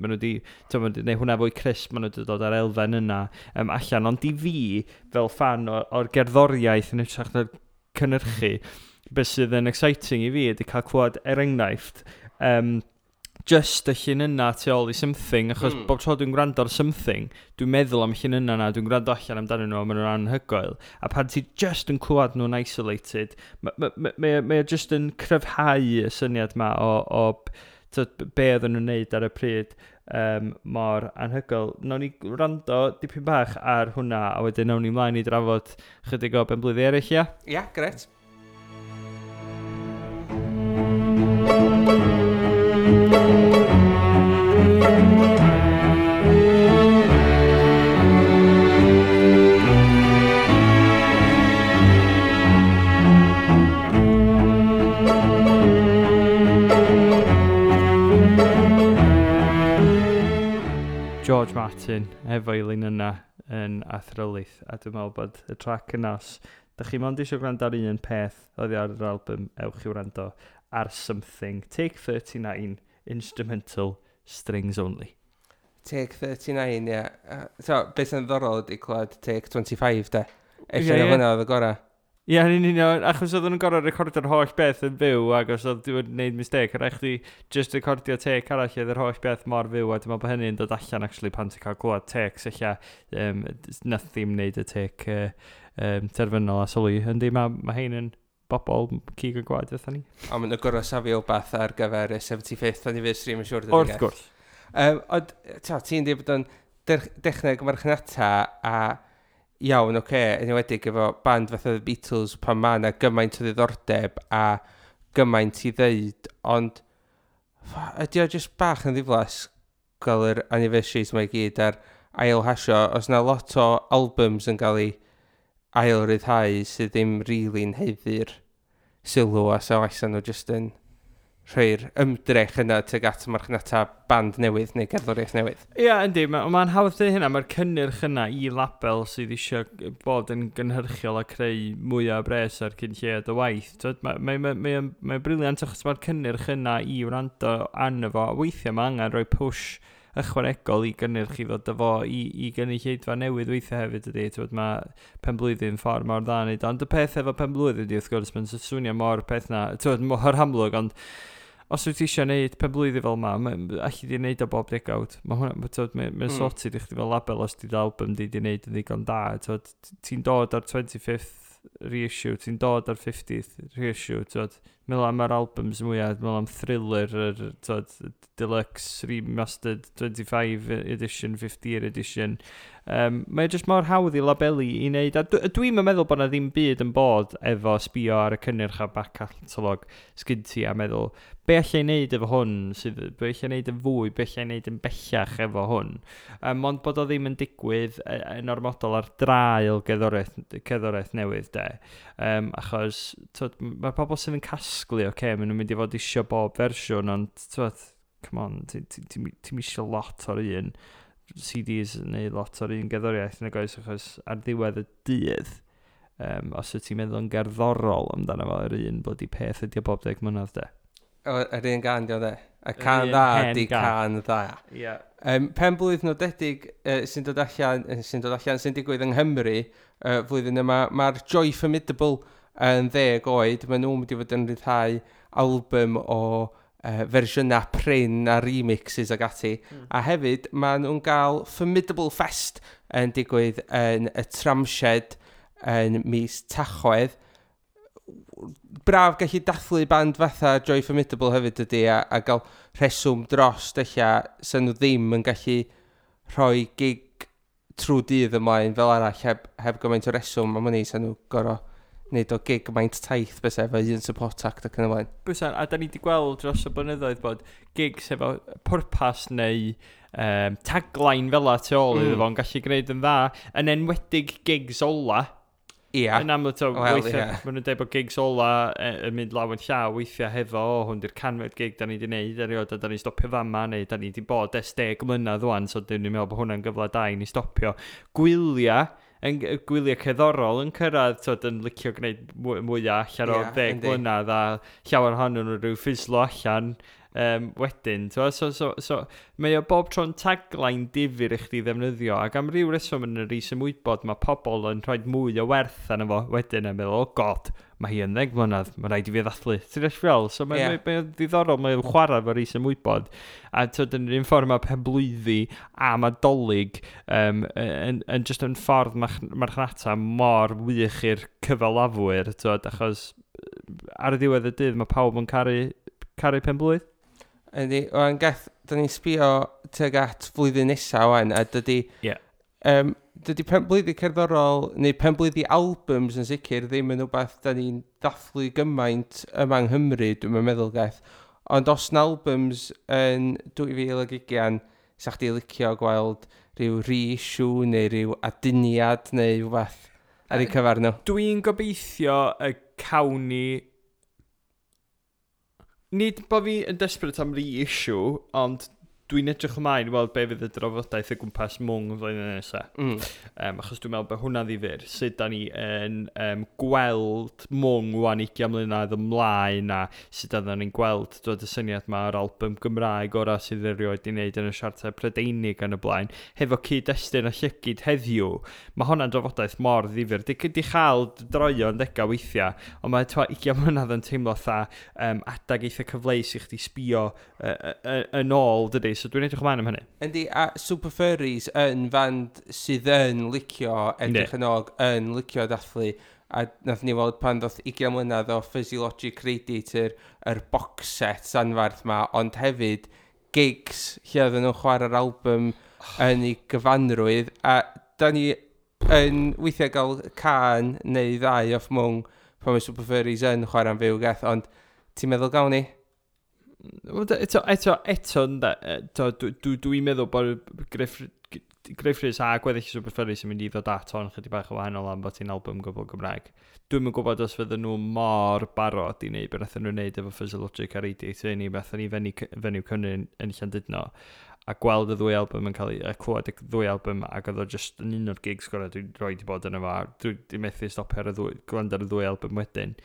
Speaker 2: t'o, ma' nhw 'di neud hwnna fwy crisp, maen nhw wedi dod ar elfen yna allan. Ond i fi, fel fan o'r gerddoriaeth yn hytrach na'r cynhyrchu, beth sydd yn exciting i fi ydy cael clywed, er enghraifft, just y llinynnau tu ôl i Something, achos bob tro dwi'n gwrando ar Something, dwi'n meddwl am y llinynnau na, dwi'n gwrando allan amdanyn nhw, a maen nhw'n anhygoel. A pan ti just yn clywed nhw'n isolated, mae ma, ma, ma, ma just yn cryfhau y syniad ma o tyd, be oedden nhw'n neud ar y pryd mor anhygoel. Nawn ni wrando dipyn bach ar hwnna, a wedyn nawn ni mlaen i drafod chydig o benblwyddi eraill, ia?
Speaker 1: Ia, yeah, gret.
Speaker 2: George Martin efo'i linynnau yn athrylith, a dwi'n meddwl bod y trac yna, os da chi mond eisiau gwrando ar un peth oddi ar yr album, ewch i wrando ar Something. Take 39, instrumental, strings only.
Speaker 1: Take 39, ie. Yeah. So, beth sy'n ddiddorol ydy clywed Take 25, de. Ella na hwnna oedd y gorau.
Speaker 2: Ie, yeah, yn union, achos oedden nhw'n gorfod recordio'r holl beth yn fyw, ac os oedd wedi gwneud mistake, rhaid chdi just recordio take arall, oedd yr holl beth mor fyw, a dwi'n meddwl bod hynny'n dod allan actually pan ti'n cael clywed takes, ella nath ddim wneud y take terfynol a sylwi. Yndi, mae hein yn bobl cig a gwaed fatha ni.
Speaker 1: Ond maen nhw'n gorfod safio wbath ar gyfer y 75th anniversary, mae'n siŵr.
Speaker 2: Wrth gwrs.
Speaker 1: Ond, ta, ti'n dweud bod o'n dechneg marchnata a iawn, oce, okay, yn enwedig efo band fatha The Beatles pan ma' 'na gymaint o ddiddordeb a gymaint i ddeud, ond ydy o jyst bach yn ddiflas gael yr anniversaries mae i gyd ar ail hasio, os na lot o albums yn cael ei ail ryddhau sydd ddim really'n haeddu'r sylw a so allan nhw jyst yn rhoi'r ymdrech yna tuag at marchnata band newydd neu gerddoriaeth newydd.
Speaker 2: Ie, yeah, yndi, mae'n ma hawdd dweud hynna, mae'r cynnyrch yna i label sydd eisiau bod yn gynhyrchiol a creu mwy o bres ar cyn lleied o waith. Mae'n ma, ma, ma, ma brilliant achos mae'r cynnyrch yna i wrando arno fo. Weithiau mae angen rhoi push ychwanegol i gynnyrch i ddod â fo i gynulleidfa newydd weithiau hefyd ydy. T'wod, mae penblwyddyn ffordd mor dda wneud. Ond y peth efo penblwyddyn ydy, wrth gwrs, mae'n swnio mor peth na, t'wod, mor amlwg, ond os wyt ti eisiau gwneud penblwyddi fel ma, alli di wneud o bob degawd. Mae hwnna, t'wod, mae'n sorted i chdi fel label os di album di di wneud yn ddigon da. T'wod, ti'n dod ar 25th reissue, ti'n dod ar 50th reissue, t'wod, meddwl am yr albums mwyaf, meddwl am Thriller, yr, t'wod, deluxe, remastered, 25 edition, 50 year edition. Mae jyst mor hawdd i labelu i wneud, a dwi'n meddwl bod na ddim byd yn bod efo sbio ar y cynnyrch a back catalog sgyn ti a meddwl, be allai wneud efo hwn, sydd, be allai wneud yn fwy, be allai wneud yn bellach efo hwn. Ond bod o ddim yn digwydd yn ormodol ar draul gerddoriaeth newydd, de. Achos t'wod, mae'r pobl sydd yn casglu, oce, okay, maen nhw'n mynd i fod isio bob fersiwn, ond t'wod, come on, ti'n isio lot o'r un CDs neu lot o'r un gerddoriaeth nag oes, achos ar ddiwedd y dydd, os wyt ti'n meddwl yn gerddorol amdano fo, yr un bloody peth ydi o bob 10 mlynedd, de.
Speaker 1: O, yr un gan di o de. Y can
Speaker 2: un
Speaker 1: dda
Speaker 2: hen
Speaker 1: di
Speaker 2: gan.
Speaker 1: can dda.
Speaker 2: Ie. Yeah.
Speaker 1: Pen blwydd nodedig sy'n dod allan, sy'n digwydd yng Nghymru flwyddyn yma, mae'r Joy Formidable yn 10 oed. Maen nhw'n mynd i fod yn rhyddhau album o fersiynau prin a remixes ag ati. A hefyd, maen nhw'n gael Formidable Fest yn digwydd yn y Tramshed yn mis Tachwedd. Braf gallu dathlu band fatha Joy Formidable hefyd ydy a gael rheswm dros ella sy'n nhw ddim yn gallu rhoi gig trwy dydd ymlaen fel arall heb gymaint o reswm am hynny sy'n nhw gorau wneud o gig maint taith bys efo un support act ac yn y blaen.
Speaker 2: Bysa, a da ni wedi gweld dros y blynyddoedd bod gigs efo pwrpas neu tagline fel tu ôl iddo fo'n gallu gwneud yn dda, yn enwedig gigs ola.
Speaker 1: Ia.
Speaker 2: Yn amlwg, to,
Speaker 1: Wel,
Speaker 2: weithiau,
Speaker 1: ie.
Speaker 2: maen nhw'n dweud bod gigs ola yn mynd law yn llaw weithiau hefo, o, hwn di'r 100fed gig da ni wedi wneud erioed, a da ni'n stopio fama, neu da ni wedi bod ers 10 mlynedd wan, so dyn ni'n meddwl bod hwnna'n gyfle da i ni stopio. Gwyliau, yn, gwyliau cerddorol yn cyrraedd, tyd, yn licio gwneud mwyaf allan o 10 mlynedd, a llawer ohonyn nhw rhyw ffislo allan wedyn. T'mo'? So, mae o bob tro'n tagline difyr i chdi ddefnyddio, ac am ryw reswm yn yr is-ymwybod mae pobl yn rhoi mwy o werth arno fo wedyn yn meddwl, "Oh God, mae hi yn 10 mlynedd, mae rhaid i fi ddathlu." Ti'n deall fel? So mae, mae o'n ddiddorol, mae'n chwarae efo'r is-ymwybod. A tyd, yn yr un ffordd mae penblwyddi a mae Dolig yn just yn ffordd marchnata mor wych i'r cyfalafwyr, tyd, achos ar y diwedd y dydd mae pawb yn caru penblwydd.
Speaker 1: Yndi, wan Geth, da ni'n sbio tuag at flwyddyn nesa wan, a dydy... Dydy penblwyddi cerddorol, neu penblwyddi albums yn sicr, ddim yn rhywbeth da ni'n dathlu gymaint yma yng Nghymru, dwi'n meddwl, Geth. Ond os na albums yn 2020, sa chdi licio gweld rhyw reissue neu rhyw aduniad neu rhywbeth ar eu cyfer nhw?
Speaker 2: Dwi'n gobeithio y cawn ni. Nid bod fi yn desperate am reissue, ond dwi'n edrych ymlaen i weld be fydd y drafodaeth o gwmpas Mwng y flwyddyn nesaf. Achos dwi'n meddwl bod hwnna ddifyr. Sut da ni yn gweld Mwng wan 20 mlynedd ymlaen a sut da ni'n gweld dod y syniad ma o'r album Gymraeg ora sydd erioed i wneud yn y siartau Prydeinig yn y blaen, hefo cyd-destun a llygyd heddiw. Mae hwnna'n drafodaeth mor ddifyr. Di chael droion ddega weithiau, ond mae twa 20 mlynedd yn teimlo fatha adag eitha cyfleus i chdi sbio yn ôl, dydy. So dwi'n edrych ymlaen am hynny.
Speaker 1: Yndi, a Super Furries yn fand sydd yn licio edrych yn ôl, yn licio dathlu. A nath ni weld pan ddoth 20 mlynedd o Fuzzy Logic Radiator, yr box set anfarth ma, ond hefyd gigs lle oedden nhw'n chwarae'r album yn ei gyfanrwydd. A da ni yn weithiau gael can neu ddau off Mwng pan mae Super Furries yn chwarae'n fyw, Geth, ond ti'n meddwl gawn ni?
Speaker 2: Wel, eto, ynde, eto, dwi'n meddwl bod Gruff Rhys a gweddill Super Furries yn mynd i ddod at hon chydig bach o wahanol am bod hi'n album gwbl Gymraeg. Dwi'm yn gwybod os fydden nhw mor barod i wneud beth nathon nhw wneud efo Fuzzy Logic a Radiator ni, beth ni Fenyw Cymru yn Llandudno a gweld y ddwy album yn cael ei, a clywed y ddwy album ac oedd o just yn un o'r gigs gorau dwi'n rhoi di bod yn efo. Dwi wedi methu stopio ar y ddwy, gwrando ar y ddwy album wedyn.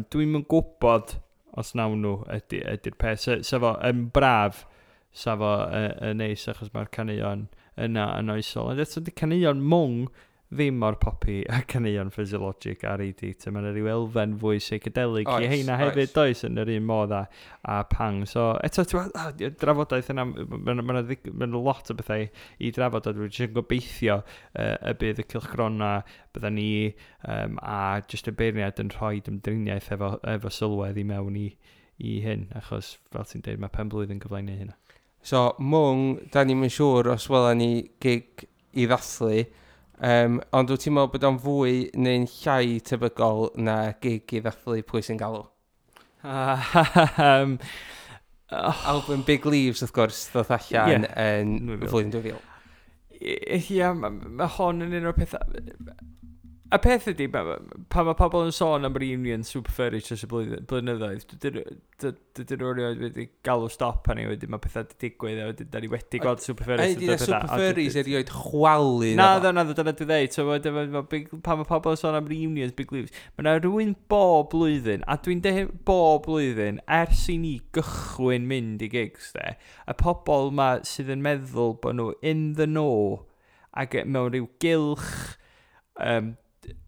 Speaker 2: Dwi'm yn gwybod os nawn nhw ydy'r peth. Sa fo yn braf, sa fo yn neis achos mae'r caneuon yna yn oesol. Ond eto, di caneuon Mwng ddim mor poppy a caneuon Fuzzy Logic a Radiator. Mae'n rhyw elfen fwy psychedelic i heina hefyd, does, yn yr un modd a Pang. So, eto, ti'n gwbod, y drafodaeth yna, mae'n ma, ma, ma lot o bethau i drafod, a dwi'n jyst yn gobeithio y bydd y cylchgrona, bydda ni a jyst y beirniad yn rhoi ymdriniaeth efo sylwedd i mewn i hyn, achos fel ti'n dweud, mae pen blwydd yn gyfle i neud hynna.
Speaker 1: So, Mwng, da ni'm yn siŵr os wela ni gig i ddathlu, ond wyt ti'n meddwl bod o'n fwy neu'n llai tebygol na gig i ddathlu Pwy Sy'n Galw?
Speaker 2: Oh,
Speaker 1: Album Big Leaves, wrth gwrs, ddoth allan yn
Speaker 2: 2000.
Speaker 1: flwyddyn 2000.
Speaker 2: Ie, ma hon yn un o'r pethau. Y peth ydy, pan mae pobl yn sôn am reunion Super Furries dros y blynyddoedd, dydyn nhw erioed wedi galw stop arni wedyn, mae pethau wedi digwydd a wedyn da ni wedi gweld Super Furries.
Speaker 1: A di na Super Furries erioed chwalu.
Speaker 2: Na, dyna dwi dweud. So, pan mae pobl yn sôn am reunions Big Leaves, mae yna rhywun bob blwyddyn, a dwi'n deud bob blwyddyn, ers i ni gychwyn mynd i gigs, de, y pobl ma sydd yn meddwl bod nhw in the know, ac mewn rhyw gylch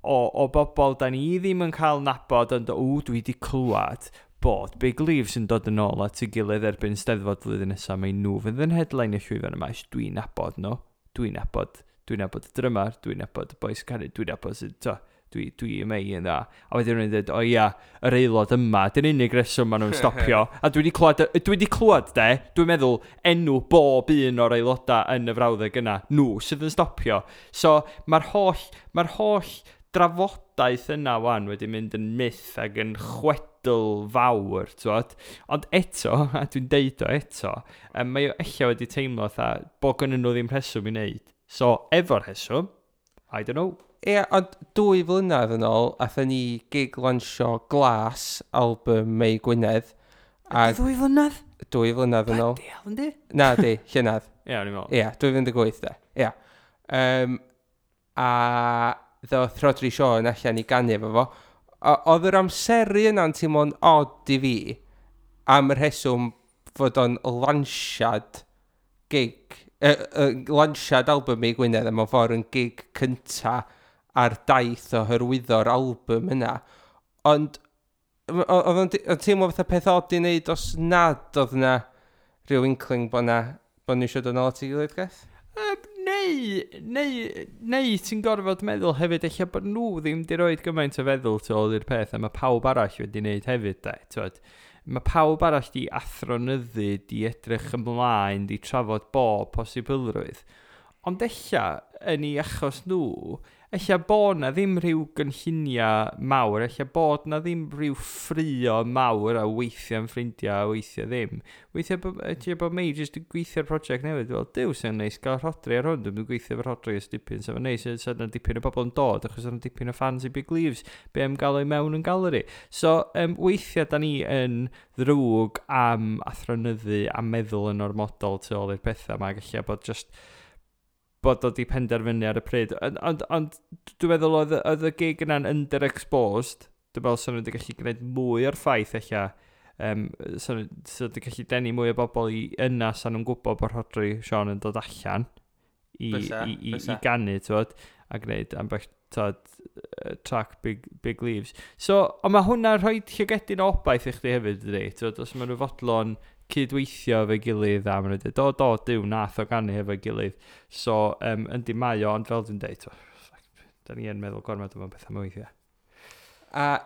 Speaker 2: o bobl da ni ddim yn cael nabod, ond o, dwi wedi clywed bod Big Leaves yn dod yn ôl at ei gilydd erbyn Steddfod flwyddyn nesaf, mae nhw fydd yn headline y llwyfan yma, dwi'n nabod nhw, dwi'n nabod y drymar, dwi'n nabod y boys canu, dwi'n nabod sydd, to, dwi yma i yn dda. A wedyn nhw'n dweud, o ia, yr aelod yma, dyn unig reswm maen nhw'n stopio. A dwi wedi clywed, de, dwi'n meddwl enw bob un o'r aelodau yn y frawddeg yna, nhw sydd yn stopio. So mae'r holl drafodaeth yna wan wedi mynd yn myth ac yn chwedl fawr, t'wod? Ond eto, a dwi'n deud o eto, mae o ella wedi teimlo fatha bod gynnon nhw ddim rheswm i wneud. So, efo'r rheswm, I don't know.
Speaker 1: Ie, ond 2 flynedd yn ôl, athyn ni gig lansio Glas, album Mei Gwynedd.
Speaker 2: A 2 flynedd?
Speaker 1: 2 flynedd yn ôl.
Speaker 2: Bloody hell, yndi?
Speaker 1: Na, di, llynedd.
Speaker 2: Ie, o'n i'n meddwl.
Speaker 1: Ie, 2018 de. Ie. A ddoth Rhodri Siôn allan i ganu efo fo. Oedd yr amseru yna'n teimlo'n odd i fi am y rheswm fod o'n lansiad gig, lansiad album Mei Gwynedd a mewn ffordd yn gig cynta ar daith o hyrwyddo'r album yna. Ond oedd o'n teimlo fatha peth odd i wneud os nad oedd yna rhyw inkling bod nhw eisiau dod nôl at ei gilydd, Geth?
Speaker 2: Neu ti'n gorfod meddwl hefyd eich bod nhw ddim di roed gymaint o feddwl tu ôl i'r peth a mae pawb arall wedi wneud hefyd, de, t'wod. Mae pawb arall di athronyddu, di edrych ymlaen, di trafod bob posibilrwydd. Ond ella, yn ei achos nhw, ella bod na ddim rhyw gynlluniau mawr, ella bod na ddim rhyw ffrio mawr a weithiau yn ffrindiau a weithiau ddim. Weithiau ella bod Mei jyst yn gweithio'r prosiect newydd, fel, "Duw, sy'n neis gael Rhodri ar hwn, dwi'n gweithio efo Rhodri ers dipyn, so fe'n neis, so yna dipyn o bobl yn dod, achos yna dipyn o fans i Big Leaves, be am gael o'i mewn yn galeri." So, weithiau da ni yn ddrwg am athronyddu a meddwl yn ormodol tu ôl i'r pethau yma, gallu bod just bod o di penderfynu ar y pryd. Ond dwi'n meddwl oedd y gig yna'n underexposed. Dwi'n meddwl sy'n nhw wedi gallu gwneud mwy o'r ffaith eich so nhw wedi gallu denu mwy o bobl i yna sa'n nhw'n gwybod bod Rhodri Siôn yn dod allan i ganu, t'wod, a gwneud ambell, t'wod, track Big Leaves. So, ond mae hwnna'n rhoi llygedyn o obaith i chdi hefyd, dydi? T'wod, os maen nhw fodlon cydweithio efo'i gilydd a maen nhw'n dweud, "Do, do, duw, nath o ganu efo'i gilydd." So, yndi mae o, ond fel dwi'n dweud, da ni yn meddwl gormod am bethau mwy weithiau.
Speaker 1: A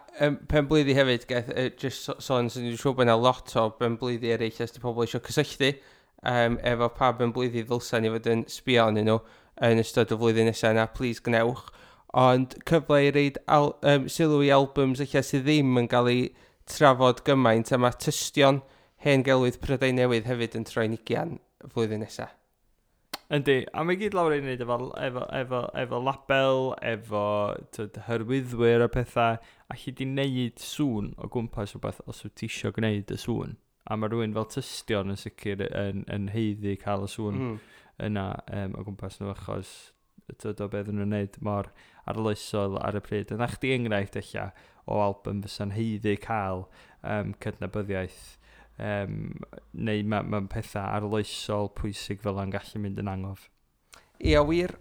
Speaker 1: pen blwyddi hefyd, Geth, just sôn, sy'n ni'n siŵr bod yna lot o ben blwyddi eraill os di pobl eisiau cysylltu efo pa ben blwyddi ddylsa ni fod yn sbio arnyn nhw yn ystod y flwyddyn nesaf yna, please gnewch. Ond cyfle i reid sylw i albums eich sydd ddim yn cael ei trafod gymaint, a mae Tystion Hen Gelwydd Prydain Newydd hefyd yn troi'n 20 flwyddyn nesaf.
Speaker 2: Yndi, a mae gyd lawr i wneud efo label, efo, t'wod, hyrwyddwyr a pethau, a chi di wneud sŵn o gwmpas rhywbeth os wyt ti isio gwneud y sŵn. A mae rhywun fel Tystion yn sicr yn haeddu cael y sŵn yna o gwmpas nhw achos, t'wod, o beth nhw'n wneud mor arloesol ar y pryd. Yna chdi enghraifft ella o album fysa'n haeddu cael cydnabyddiaeth neu ma pethau arloesol pwysig fel yna'n gallu mynd yn angof.
Speaker 1: Ia, wir.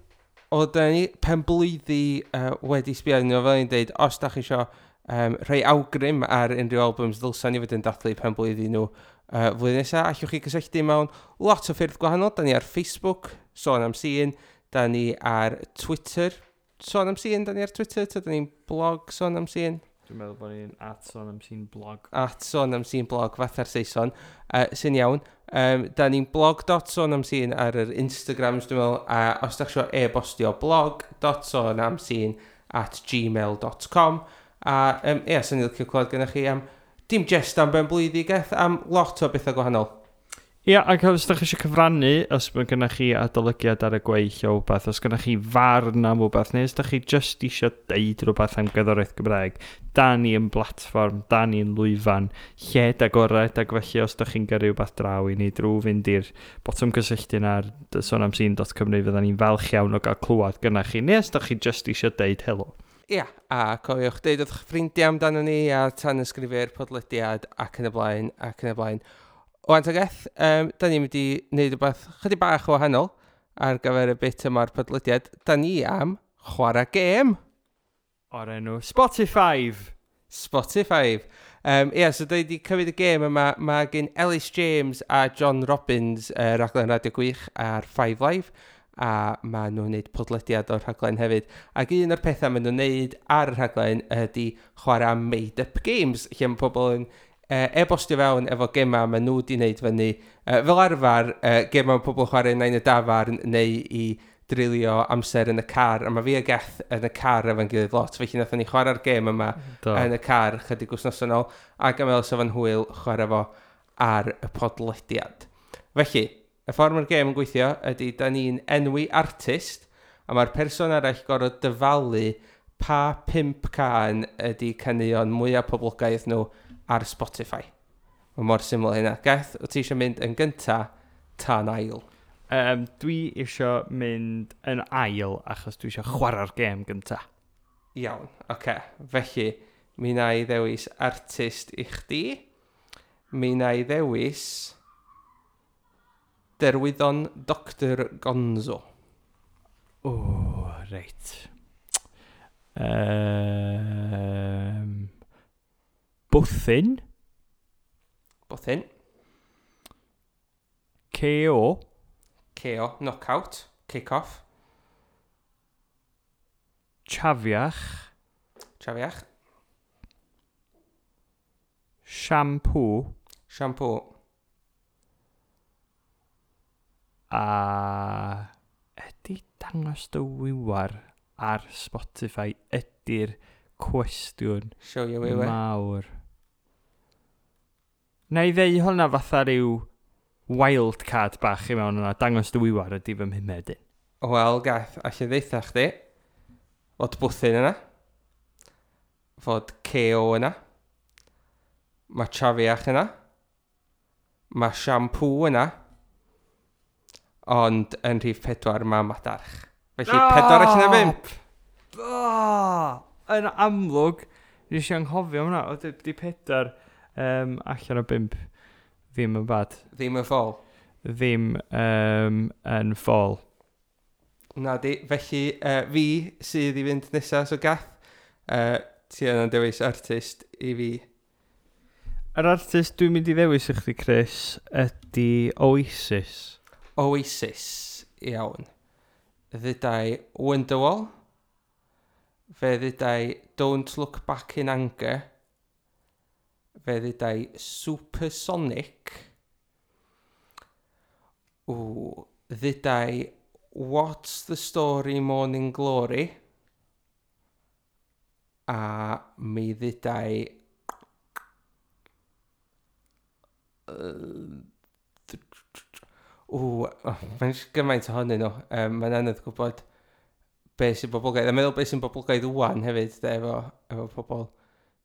Speaker 1: O, da ni pen blwyddi wedi sbio arnyn nhw, fel ni'n deud, os da chi isio rhoi awgrym ar unrhyw albums ddylsa ni fod yn dathlu pen blwyddi nhw flwyddyn nesaf, allwch chi gysylltu mewn lot o ffyrdd gwahanol. Da ni ar Facebook, Sôn am Sîn, da ni ar Twitter, Sôn am Sîn, da ni ar Twitter, ta da ni'n blog Sôn am Sîn?
Speaker 2: Dwi'n meddwl bod ni'n @SônAmSînBlog.
Speaker 1: @SônAmSînBlog, fatha'r Saeson, sy'n iawn. Da ni'n blog.sonamsîn ar yr Instagrams, dwi'n meddwl, a os da chi isio e-bostio, blog.sonamsîn@gmail.com. A ie, sy'n ni'n licio clywed gennych chi am, dim jest am ben blwyddi, Geth, am lot o bethau gwahanol.
Speaker 2: Ia, ac os ydych chi eisiau cyfrannu, os mae gennych chi adolygiad ar y gweill o wbeth, os gennych chi farn am wbeth, neu os ydych chi just eisiau deud rhywbeth am gerddoriaeth Gymraeg, da ni yn blatfform, da ni yn lwyfan, lled agored, ac felly os ydych chi'n gyrru rhywbeth draw i ni drwy fynd i'r botwm cysylltu yna ar sonamsîn.cymru, fydda ni'n falch iawn o gael clywed gynnach chi, neu os ydych chi just eisiau deud helo.
Speaker 1: Ia, a cofiwch deud wrth eich ffrindiau amdano ni a tan ysgrifio'r podlediad ac yn y blaen, ac yn y blaen. Wan ta Geth, da ni'n mynd i wneud rhywbeth chydig bach o wahanol ar gyfer y bit yma'r podlediad. Da ni am chwarae gêm.
Speaker 2: O'r enw Spotify.
Speaker 1: Spotify. Ie, so da ni wedi cymryd y gêm yma. Mae gen Ellis James a John Robbins raglen radio gwych ar Five Live, a maen nhw'n gwneud podlediad o'r rhaglen hefyd. Ac un o'r pethau maen nhw'n gwneud ar y rhaglen ydy chwarae made-up games, lle mae pobl yn e-bostio fewn efo gemau maen nhw wedi wneud fyny. Fel arfer, gemau mae pobl yn chwarae neu yn y dafarn neu i drilio amser yn y car. A mae fi a Geth yn y car efo'n gilydd lot, felly nathon ni chwarae'r gêm yma yn y car chydig wythnos yn ôl, ac am fel sef yn hwyl chwarae fo ar y podlediad. Felly, y ffordd mae'r gêm yn gweithio ydy da ni'n enwi artist. A mae'r person arall gorfod dyfalu pa 5 cân ydy caneuon mwyaf poblogaidd nhw ar Spotify. Mae mor syml hynna. Geth, wyt ti eisiau mynd yn gynta ta'n ail?
Speaker 2: Dwi eisiau mynd yn ail achos dwi eisiau chwarae'r gêm gynta.
Speaker 1: Iawn, oce. Okay. Felly, mi na i ddewis artist i chdi. Mi na i ddewis Derwyddon Dr Gonzo.
Speaker 2: O, reit. Bwthyn.
Speaker 1: Bwthyn.
Speaker 2: KO.
Speaker 1: KO, knockout, kick-off.
Speaker 2: Chafiach.
Speaker 1: Chafiach.
Speaker 2: Shampoo.
Speaker 1: Shampoo.
Speaker 2: A ydy Dangos Dy Wiwar ar Spotify ydy'r cwestiwn
Speaker 1: Show your wiwer.
Speaker 2: Mawr. Na i ddeu hwnna fatha rhyw wild card bach i mewn yna. Dangos Dy Wiwar ydy fy mhumed un.
Speaker 1: Wel, Gath, allai ddeitha chdi fod Bwthyn yna, fod KO yna, mae Chafiach yna, mae Shampoo yna, ond yn rhif 4 mae Madarch. Felly, 4 allan o 5.
Speaker 2: Oh, yn amlwg, nes i anghofio hwnna. O, di 4 allan o 5 ddim yn bad.
Speaker 1: Ddim yn ffôl.
Speaker 2: Ddim yn ffôl.
Speaker 1: Na di, felly fi sydd i fynd nesaf, so Gath, ti yna'n dewis artist i fi.
Speaker 2: Yr artist dwi'n mynd i ddewis i chdi, Chris, ydy Oasis.
Speaker 1: Oasis, iawn. Ddudai Wonderwall. Fe ddudai Don't Look Back in Anger. Fe ddudai Supersonic. Ww, ddudai What's the Story Morning Glory. A mi ddudai ww, oh, mae'n gymaint ohonyn nhw. Mae'n anodd gwybod be sy'n boblogaidd. A meddwl be sy'n boblogaidd wan hefyd, de, efo pobl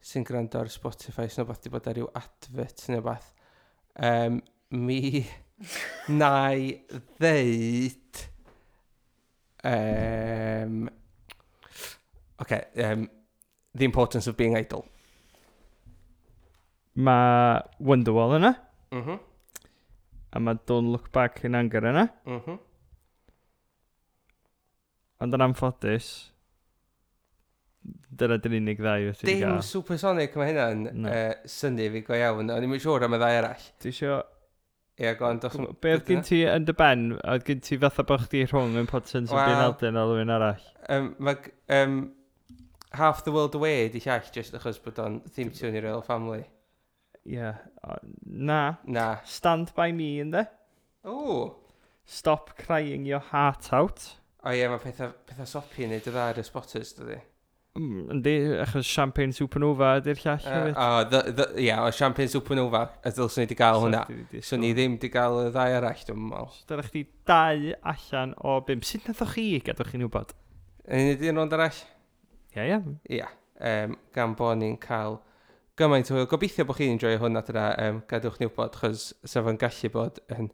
Speaker 1: sy'n gwrando ar Spotify, sy'n rhywbeth di bod ar ryw advert neu beth. Mi na i ddeud... Okay, The Importance of Being Idle.
Speaker 2: Mae Wonderwall yna, a mae Don't Look Back in Anger yna. Ond yn anffodus, dyna dy'r unig ddau wyt ti wedi
Speaker 1: Dim
Speaker 2: gael.
Speaker 1: Supersonic, mae hynna'n
Speaker 2: Na.
Speaker 1: synnu fi go iawn. O'n i'm yn siŵr am y ddau arall.
Speaker 2: Ti isio...
Speaker 1: Ie, go on, dos...
Speaker 2: Be oedd gen ti yn dy ben? Oedd gen ti fatha bod chdi rhwng Importance of Being
Speaker 1: Wel-
Speaker 2: Idle a rhywun arall?
Speaker 1: Mae Half the World Away di llall, just achos bod o'n theme tune i Royal Family.
Speaker 2: Ie. Yeah. Na.
Speaker 1: Na.
Speaker 2: Stand By Me, ynddo?
Speaker 1: O!
Speaker 2: Stop Crying Your Heart Out.
Speaker 1: O ie, mae pethau soppy yn neud y dda ar y spotters, dydy.
Speaker 2: Yndi, achos Champagne Supernova ydy'r llall hefyd.
Speaker 1: O, ie, o Champagne Supernova, a ddylswn ni wedi gael hwnna. Swn i ddim wedi gael y ddau arall, dwi'n meddwl.
Speaker 2: Dyna chdi 2 allan o 5. Sut nathoch chi, gadwch chi'n wybod?
Speaker 1: Yn neud un rownd arall?
Speaker 2: Ie.
Speaker 1: Ia, gan bod ni'n cael gymaint o hwyl. Gobeithio bod chi'n enjoy hwn adra, gadewch ni wybod, chos sa fo'n gallu bod yn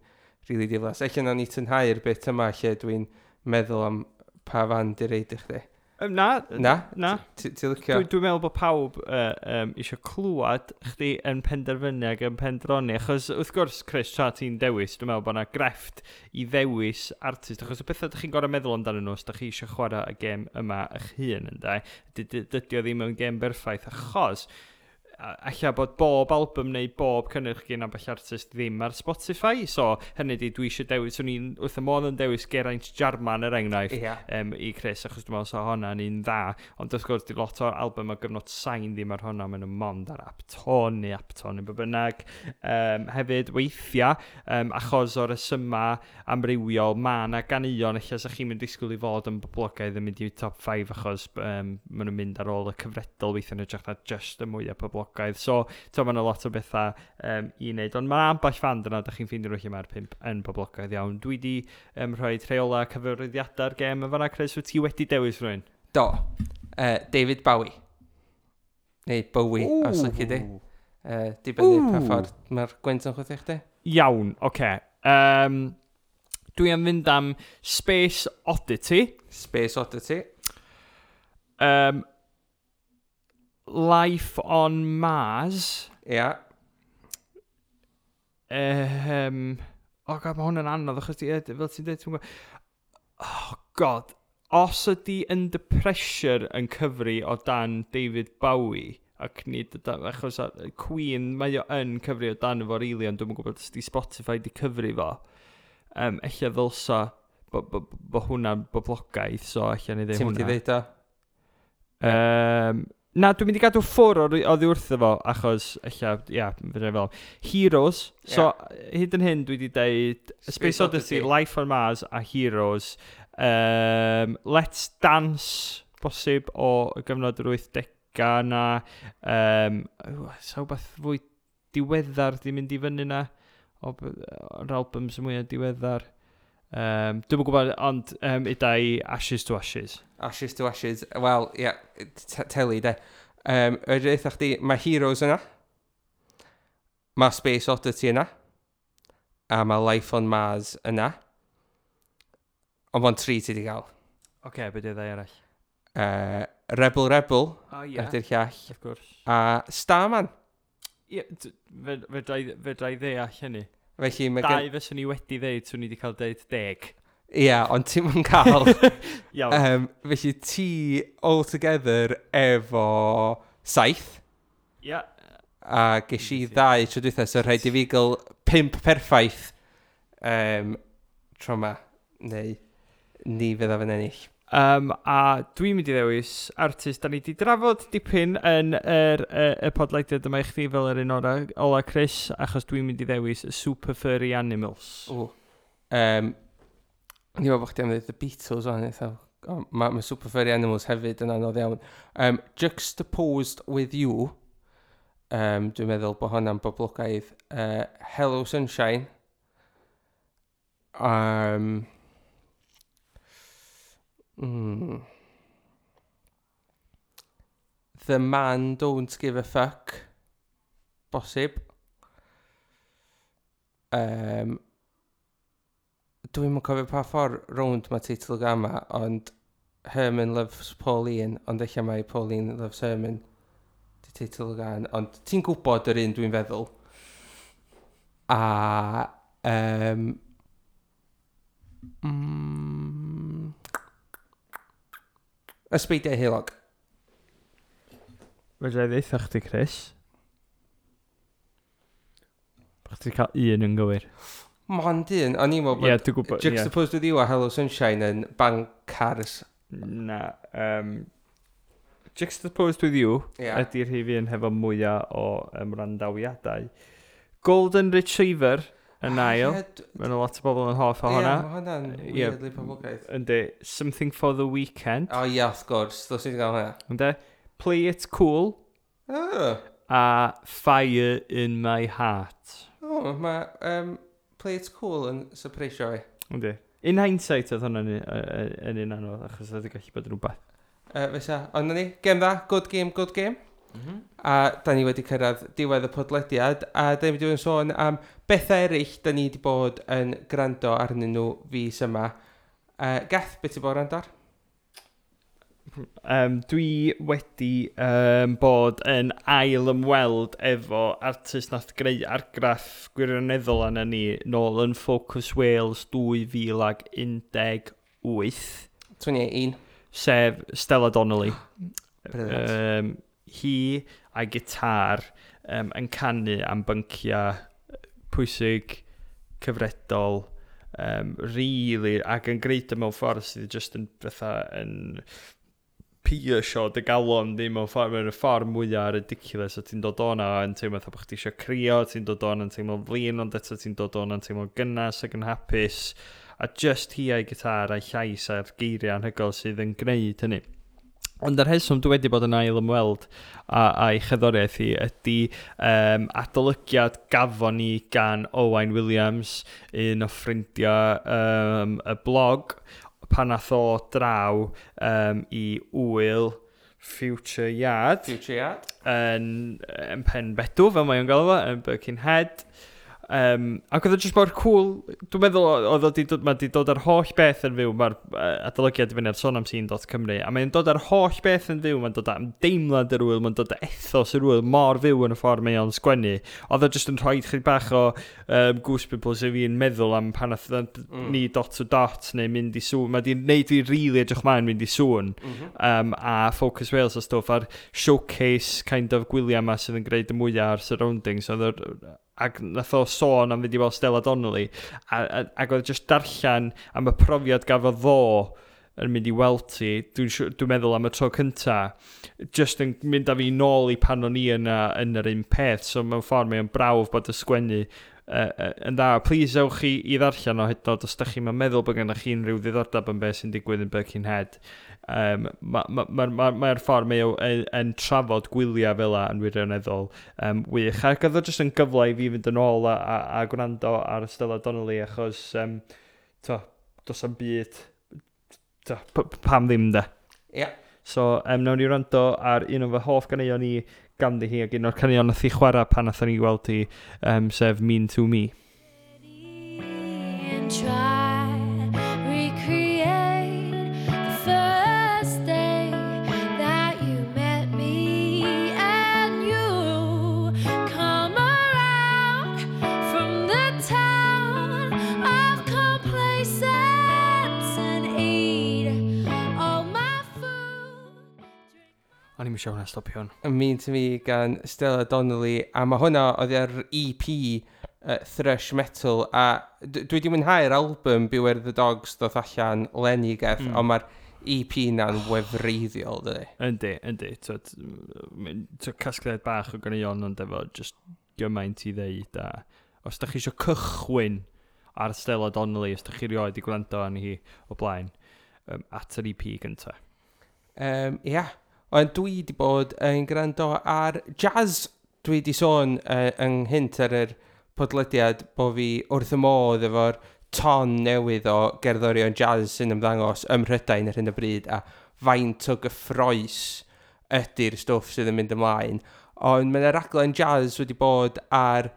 Speaker 1: rili really diflas. Ella nawn ni tynhau'r bit yma lle dwi'n meddwl am pa fand i reid i chdi.
Speaker 2: Na.
Speaker 1: Na?
Speaker 2: Na.
Speaker 1: Ti licio?
Speaker 2: Dwi'n dwi meddwl bod pawb eisiau clywed chdi yn penderfynu ac yn pendroni. Achos wrth gwrs, Chris, tra ti'n dewis, dwi'n meddwl bod yna grefft i ddewis artist. Achos y pethau ydych chi'n gorfod meddwl amdanyn nhw os ydych chi eisiau chwarae y gêm yma eich hun, ynde. Dydy o ddim yn gêm berffaith, achos alla bod bob album neu bob cynnyrch gen ambell artist ddim ar Spotify. So, hynny di, dwi eisiau dewis, swn i'n wrth y modd yn dewis Geraint Jarman er enghraifft i Chris, achos dwi'n meddwl sa hwnna'n un dda. Ond wrth gwrs, di lot o'r album o gyfnod Sain ddim ar hwnna, maen nhw mond ar Apton neu Apton neu be bynnag. Hefyd, weithiau, achos o'r rhesyma amrywiol, mae yna ganeuon, ella sa chi'n mynd disgwyl i fod yn boblogaidd yn mynd i top 5 achos maen nhw'n mynd ar ôl y cyfredol weithiau yn hytrach na just y mwyaf poblogaidd. boblogaidd. So, to, mae yna lot o bethau i wneud. Ond mae ambell fand yna, da chi'n ffeindio nhw lle mae'r 5 yn boblogaidd iawn. Dwi wedi rhoi rheola cyfarwyddiadau'r gêm yn fanna, Chris. Wyt ti wedi dewis rhywun?
Speaker 1: Do. David Bowie. Neu Bowie, os lici di. Dibynnu pa ffordd mae'r gwynt yn chwythu chdi.
Speaker 2: Iawn, oce. Okay. Dwi am fynd am Space Oddity.
Speaker 1: Space Oddity.
Speaker 2: Life on Mars.
Speaker 1: Ia.
Speaker 2: Yeah. Oh God, mae hwn yn anodd, achos ti, fel ti'n dweud, ti'n gwybod. Oh God, os ydy Under Pressure yn cyfri o dan David Bowie, ac nid o dan, achos Queen, mae o yn cyfri o dan efo really, ond dwi'm yn gwybod os di Spotify di cyfri fo. Ella ddylsa bo hwnna'n boblogaidd, so ella ni ddeud
Speaker 1: Ti'n mynd i
Speaker 2: hwnna.
Speaker 1: ddeud o?
Speaker 2: Na, dwi'n mynd i gadw ffwr oddi wrtho fo, achos ella, ia, fydda i fel. Heroes, so hyd yn hyn dwi wedi deud Space Oddity, Life on Mars a Heroes. Let's Dance, bosib o gyfnod yr 80au na. Sa wbeth fwy diweddar di mynd i fyny na, o'r albums mwyaf diweddar. Dwi'm yn gwybod, ond ida i Ashes to Ashes.
Speaker 1: Ashes to Ashes. Wel, ie, yeah, teli, de. Yr eitha chdi, mae Heroes yna. Mae Space Oddity yna. A mae Life on Mars yna. Ond mae'n tri ti di gael.
Speaker 2: Oce, okay, be di ddau arall?
Speaker 1: Rebel Rebel
Speaker 2: O, ie.
Speaker 1: ydy'r llall.
Speaker 2: Of course.
Speaker 1: A Starman.
Speaker 2: Ie, fedra i ddeall hynny.
Speaker 1: Felly mae gen.
Speaker 2: Dau fyswn i wedi ddeud, swn i wedi cael deud 10.
Speaker 1: Ie, ond ti'n mynd cael.
Speaker 2: Iawn.
Speaker 1: Felly ti all together efo 7.
Speaker 2: Ia.
Speaker 1: A ges i ddau tro dwytha, so rhaid i fi gael 5 perffaith tro ma. Neu ni fyddaf yn ennill.
Speaker 2: A dwi'n mynd i ddewis artist da ni wedi drafod dipyn yn y podlediad yma i chdi fel yr un ola, Chris, achos dwi'n mynd i ddewis y Super Furry Animals.
Speaker 1: O. Ni'n meddwl bod chdi am ddweud The Beatles o'n eitha. Mae ma Super Furry Animals hefyd yn anodd iawn. Juxtaposed With You. Dwi'n meddwl bod hwnna'n boblogaidd. Hello Sunshine. The Man Don't Give a Fuck. Bosib. Dwi'm yn cofio pa ffordd rownd mae teitl y gama, ond Herman Loves Pauline, ond eich mae Pauline Loves Herman di teitl y gan, ond ti'n gwybod yr un dwi'n feddwl. A Ysbeidiau Heulog.
Speaker 2: Fedra i ddeutha chdi, Chris. Bo chdi cael un yn gywir.
Speaker 1: Mond un, o'n i'n meddwl
Speaker 2: Ie,
Speaker 1: bod
Speaker 2: dwi'n gwybod. Ie.
Speaker 1: Juxtaposed With You a Hello Sunshine yn bancars.
Speaker 2: Na. Juxtaposed With You ydy'r rhif un hefo mwyaf o randawiadau. Golden Retriever yn ail. Mae yna lot o bobl yn hoff o
Speaker 1: Ie,
Speaker 2: hwnna.
Speaker 1: mae hwnna'n weirdly poblogaidd.
Speaker 2: Yndi. Something for the Weekend.
Speaker 1: O ie, wrth gwrs, ddylswn i gael hwnna.
Speaker 2: Yndi. Play It Cool
Speaker 1: Oh,
Speaker 2: a Fire in My Heart.
Speaker 1: oh mae Play It Cool yn surpreisio fi.
Speaker 2: Yndi. In hindsight oedd hwnna'n yn un anodd, achos oedd yn gallu bod yn rhywbeth.
Speaker 1: Fysa, ond na ni, gêm dda, good game, good game. A da ni wedi cyrraedd diwedd y podlediad, a da ni wedi bod yn sôn am bethau eraill da ni wedi bod yn gwrando arnyn nhw fis yma. Geth, beth ti bod yn gwrando ar?
Speaker 2: Dwi wedi bod yn ail ymweld efo artist nath greu argraff gwirioneddol arna ni nôl yn Focus Wales 2018,
Speaker 1: 21.
Speaker 2: sef Stella Donnelly.
Speaker 1: Brilliant.
Speaker 2: Hi a'i gitar yn canu am bynciau pwysig, cyfredol, really, ac yn greid o mewn ffordd sydd just yn fatha yn piercio dy galon di mewn ffordd, mewn y ffordd mwyaf ridiculous, a ti'n dod o'na yn teimlo fatha bod chdi eisiau crio, ti'n dod o'na yn teimlo'n flin, ond eto ti'n dod o'na yn teimlo'n gynnas ac yn hapus, a just hi a'i gitar a'i llais a'r geiriau anhygoel sydd yn gwneud hynny. Ond yr rheswm dwi wedi bod yn ail ymweld a'i cherddoriaeth hi ydy adolygiad gafon ni gan Owain Williams, un o ffrindiau y blog, pan nath o draw i ŵyl Future Yard.
Speaker 1: Future Yard.
Speaker 2: Yn Penbedw, fel mae o'n galw fo, yn Birkenhead. Ac oedd o jyst mor cool. Dwi'n meddwl oedd o 'di dod, mae 'di dod ar holl beth yn fyw. Mae'r adolygiad i fyny ar sonamscene.cymru, a mae'n dod ar holl beth yn fyw. Mae'n dod am deimlad yr wyl, mae'n dod â ethos yr wyl mor fyw yn y ffordd mae o'n sgwennu. Oedd o jyst yn rhoi chydig bach o goose pimples i fi'n meddwl am pan nath ni Dot to Dot neu mynd i Sŵn. Mae 'di wneud fi really edrych mlaen mynd i Sŵn a Focus Wales a stwff a'r showcase kind of gwyliau yma sydd yn gwneud y mwyaf ar surroundings. Oedd ac nath o sôn am fynd i weld Stella Donnelly ac oedd just darllen am y profiad gafodd fo yn mynd i weld ti, dwi meddwl am y tro cynta, just yn mynd â fi nôl i pan o'n i yna yn yr un peth, so mewn ffordd mae'n brawf bod y sgwennu yn dda. Please ewch i ddarllen o hyd yn oed os da chi'n meddwl bod gennych chi unrhyw ddiddordeb yn beth sy'n digwydd yn Birkenhead. Mae'r ma ffordd mae o yn trafod gwyliau fel 'a yn wirioneddol wych. Ac oedd o jyst yn gyfle i fi fynd yn ôl a gwrando ar Stella Donnelly achos to, does am byd to, pam ddim de.
Speaker 1: Ie.
Speaker 2: So, nawn ni wrando ar un o fy hoff ganeuon i ganddi hi ac un o'r caneuon nath hi chwarae pan nathon ni weld hi, sef Mean to Me.
Speaker 4: And try recreate the first day that you met me, and you come around from the town of complacence and eat all my food.
Speaker 2: O'n i'n eisiau hwnna stopio hwn.
Speaker 1: Mean to Me gan Stella Donnelly, a mae hwnna oedd ar EP Thrush Metal, a dwi wedi mwynhau'r album Beware the Dogs ddoth allan leni, Geth, ond mae'r EP na'n wefreiddiol, dydy.
Speaker 2: Yndi. Twyd, casgliad bach o ganeuon ond efo just gymaint i ddeud. A os da chi eisiau cychwyn ar Stella Donnelly, os da chi rioed i gwrando arni hi o blaen, at yr EP gynta.
Speaker 1: Ia, ond dwi wedi bod yn gwrando ar jazz. Dwi wedi sôn ynghynt ar yr podlediad bod fi wrth y modd efo'r ton newydd o gerddorion jazz sy'n ymddangos ym Mhrydain ar hyn o bryd a faint o gyffroes ydy'r stwff sydd yn mynd ymlaen. Ond mae yna raglen jazz wedi bod ar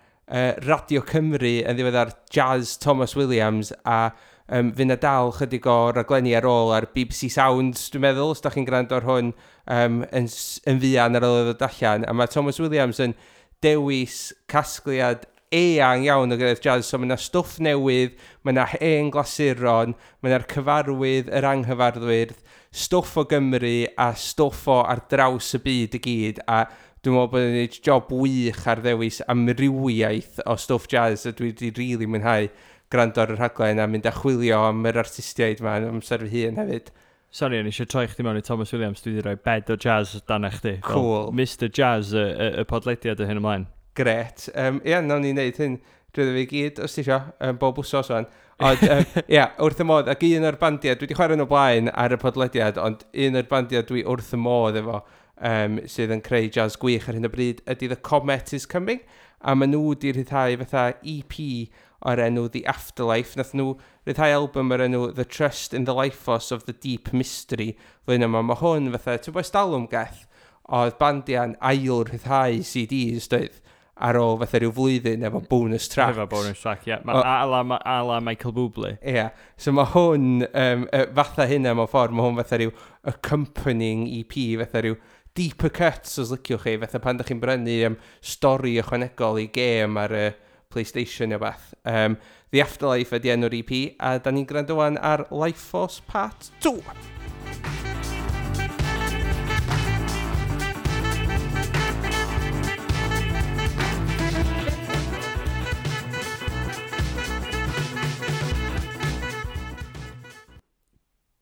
Speaker 1: Radio Cymru yn ddiweddar, Jazz Thomas Williams, a fydd 'na dal chydig o raglenni ar ôl ar BBC Sounds, dwi'n meddwl, os da chi'n gwrando ar hwn yn fuan ar ôl iddo ddod allan. A mae Thomas Williams yn dewis casgliad eang iawn o gerddoriaeth jazz, so mae yna stwff newydd, mae yna hen glasuron, mae yna'r cyfarwydd, yr anghyfarwydd, stwff o Gymru a stwff o ar draws y byd i gyd, a dwi'n meddwl bod yn gwneud job wych ar ddewis amrywiaeth o stwff jazz, a dwi wedi rili really mwynhau gwrando ar y rhaglen a mynd a chwilio am yr artistiaid yma yn amser fy hun hefyd.
Speaker 2: Sorry, o'n i eisiau troi chdi mewn i Thomas Williams, dwi wedi rhoi bed o jazz dan chdi. Fel
Speaker 1: Cool.
Speaker 2: Mr Jazz, y podlediad o hyn ymlaen.
Speaker 1: Gret. Ia, nawn ni wneud hyn drwy fi gyd, os ti isio, bob wsos wan. Ond, ia, wrth y modd, ac un o'r bandiau, dwi wedi chwarae nhw blaen ar y podlediad, ond un o'r bandiau dwi wrth y modd efo, sydd yn creu jazz gwych ar hyn o bryd, ydy The Comet is Coming, a maen nhw wedi rhyddhau fatha EP o'r enw The Afterlife. Nath nhw rhyddhau album o'r enw The Trust in the Life Force of the Deep Mystery flwyddyn yma. Mae hwn fatha, ti'n bod stalwm, Geth, oedd bandiau'n ail rhyddhau CDs, doedd, ar ôl fatha rhyw flwyddyn efo bonus tracks.
Speaker 2: Efo bonus track, ie. Yeah. A la Michael Bublé.
Speaker 1: Ie, yeah. So mae hwn, fatha hynna mewn ffordd, mae hwn fatha rhyw accompanying EP, fatha rhyw deeper cuts os liciwch chi, fatha pan ydych chi'n brynu stori ychwanegol i gêm ar y PlayStation neu beth. The Afterlife ydy enw'r EP, a da ni'n gwrando wan ar Life Force Part 2.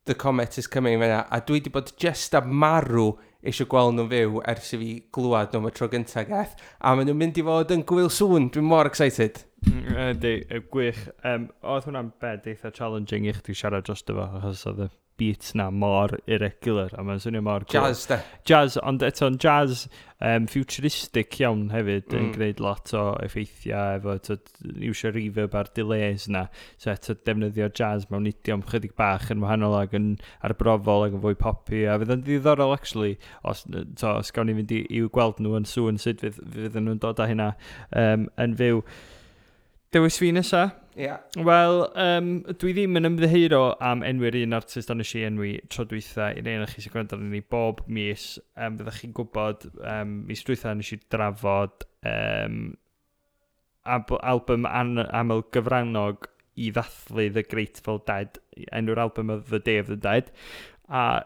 Speaker 1: The Comet is Coming fyna, a dwi wedi bod just a marw eisiau gweld nhw'n fyw ers i fi glwad nhw am y tro gyntaf, Geth, a maen nhw'n mynd i fod yn Gŵyl Sŵn, dwi'n mor excited.
Speaker 2: Yndi, gwych. Oedd hwnna'n bed eitha challenging i chdi siarad dros fo, achos oedd y beats na mor irregular, a mae'n swnio mor
Speaker 1: cool. Jazz, de.
Speaker 2: Jazz, ond eto'n jazz futuristic iawn hefyd, yn gwneud lot o effeithiau efo, iwsio reverb a'r delays na. So eto defnyddio jazz mewn idiom chydig bach yn wahanol ac yn arbrofol ac yn fwy poppy, a fydd yn ddiddorol actually, os gawn ni fynd i'w gweld nhw yn Sŵn, sut fydd nhw'n dod â hynna yn fyw. Dewis fi nesa?
Speaker 1: Ie. Yeah.
Speaker 2: Wel, dwi ddim yn ymddiheuro am enwi'r un artist ond nes i enwi tro dwytha i rei chi sy'n gwrando arnon ni bob mis. Fyddech chi'n gwybod, mis dwytha nes i drafod album aml gyfrannog i ddathlu The Grateful Dead. Enw'r album oedd The Day of the Dead. A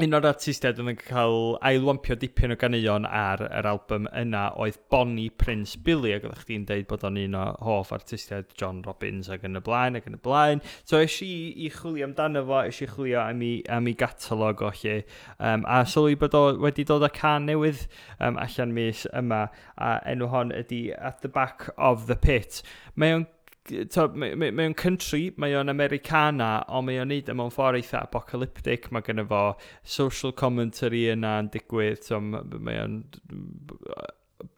Speaker 2: un o'r artistiaid oedd yn cael ailwampio dipyn o ganeuon ar yr album yna oedd Bonnie Prince Billy, ac oeddech chdi'n deud bod o'n un o hoff artistiaid John Robbins ac yn y blaen, ac yn y blaen. So es i i chwilio amdano fo, es i chwilio am ei gatalog o lle, a sylwi bod o wedi dod â can newydd allan mis yma, a enw hon ydy At the Back of the Pit. Mae o'n mae o'n country, mae o'n Americana, ond mae o'n neud e mewn ffordd eitha apocalyptic. Mae gynno fo social commentary yna yn digwydd, so mae o'n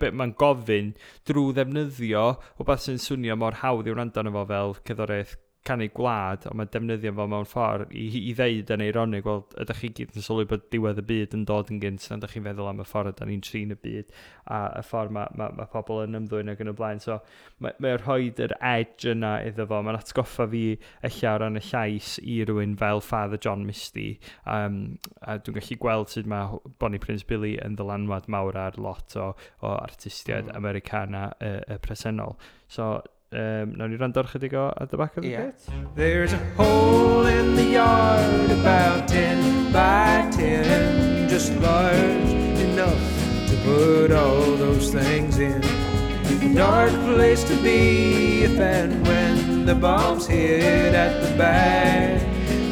Speaker 2: mae'n gofyn drwy ddefnyddio wbeth sy'n swnio mor hawdd i wrando arno fo fel cerddoriaeth canu gwlad, ond mae'n defnyddio fo mewn ffordd i ddeud yn eironig, wel, ydych chi gyd yn sylwi bod diwedd y byd yn dod yn gynt, na ydych chi'n feddwl am y ffordd ydych ni'n trin y byd, a y ffordd mae pobl yn ymddwyn ac yn y blaen. So, mae rhoi yr edge yna iddo fo. Mae'n atgoffa fi ella o ran y llais i rywun fel Father John Misty. A dwi'n gallu gweld sut mae Bonnie Prince Billy yn ddylanwad mawr ar lot o artistiaid Americana y presennol. So, nawn ni wrando ar chydig o At the Back of the Pit.
Speaker 3: There's a hole in the yard about 10 by 10, just large enough to put all those things in. A dark place to be if and when the bombs hit at the back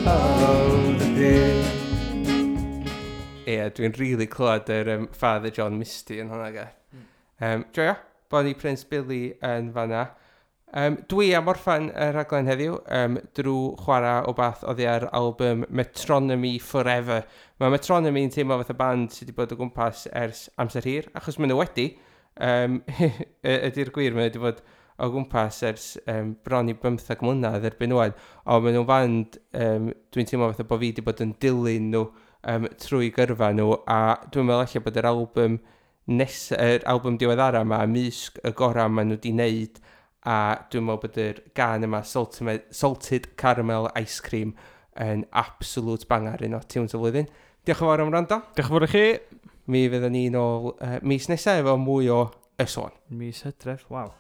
Speaker 3: of the pit.
Speaker 1: Ie, yeah, dwi'n really clywed yr Father John Misty yn hwnna, ge. Joio, Bonnie Prince Billy yn fanna. Dwi am orffan y rhaglen heddiw drwy chwarae o bath oddi ar album Metronomy Forever. Mae Metronomy yn teimlo fath o band sydd wedi bod o gwmpas ers amser hir, achos maen nhw wedi. Ydy'r gwir, maen nhw wedi bod o gwmpas ers bron i 15 mlynedd erbyn ŵan. Ond maen nhw'n band, dwi'n teimlo fatha bod fi wedi bod yn dilyn nhw trwy gyrfa nhw, a dwi'n meddwl ella bod yr album yr album diweddara yma, ymysg y gorau maen nhw wedi wneud, a dwi'n meddwl bod yr gan yma, Salted Caramel Ice Cream, yn absolute banger, un o tunes y flwyddyn. Diolch yn fawr am wrando.
Speaker 2: Diolch yn fawr i chi.
Speaker 1: Mi fyddwn ni nôl mis nesaf efo mwy o Y Sôn.
Speaker 2: Mis Hydref, waw.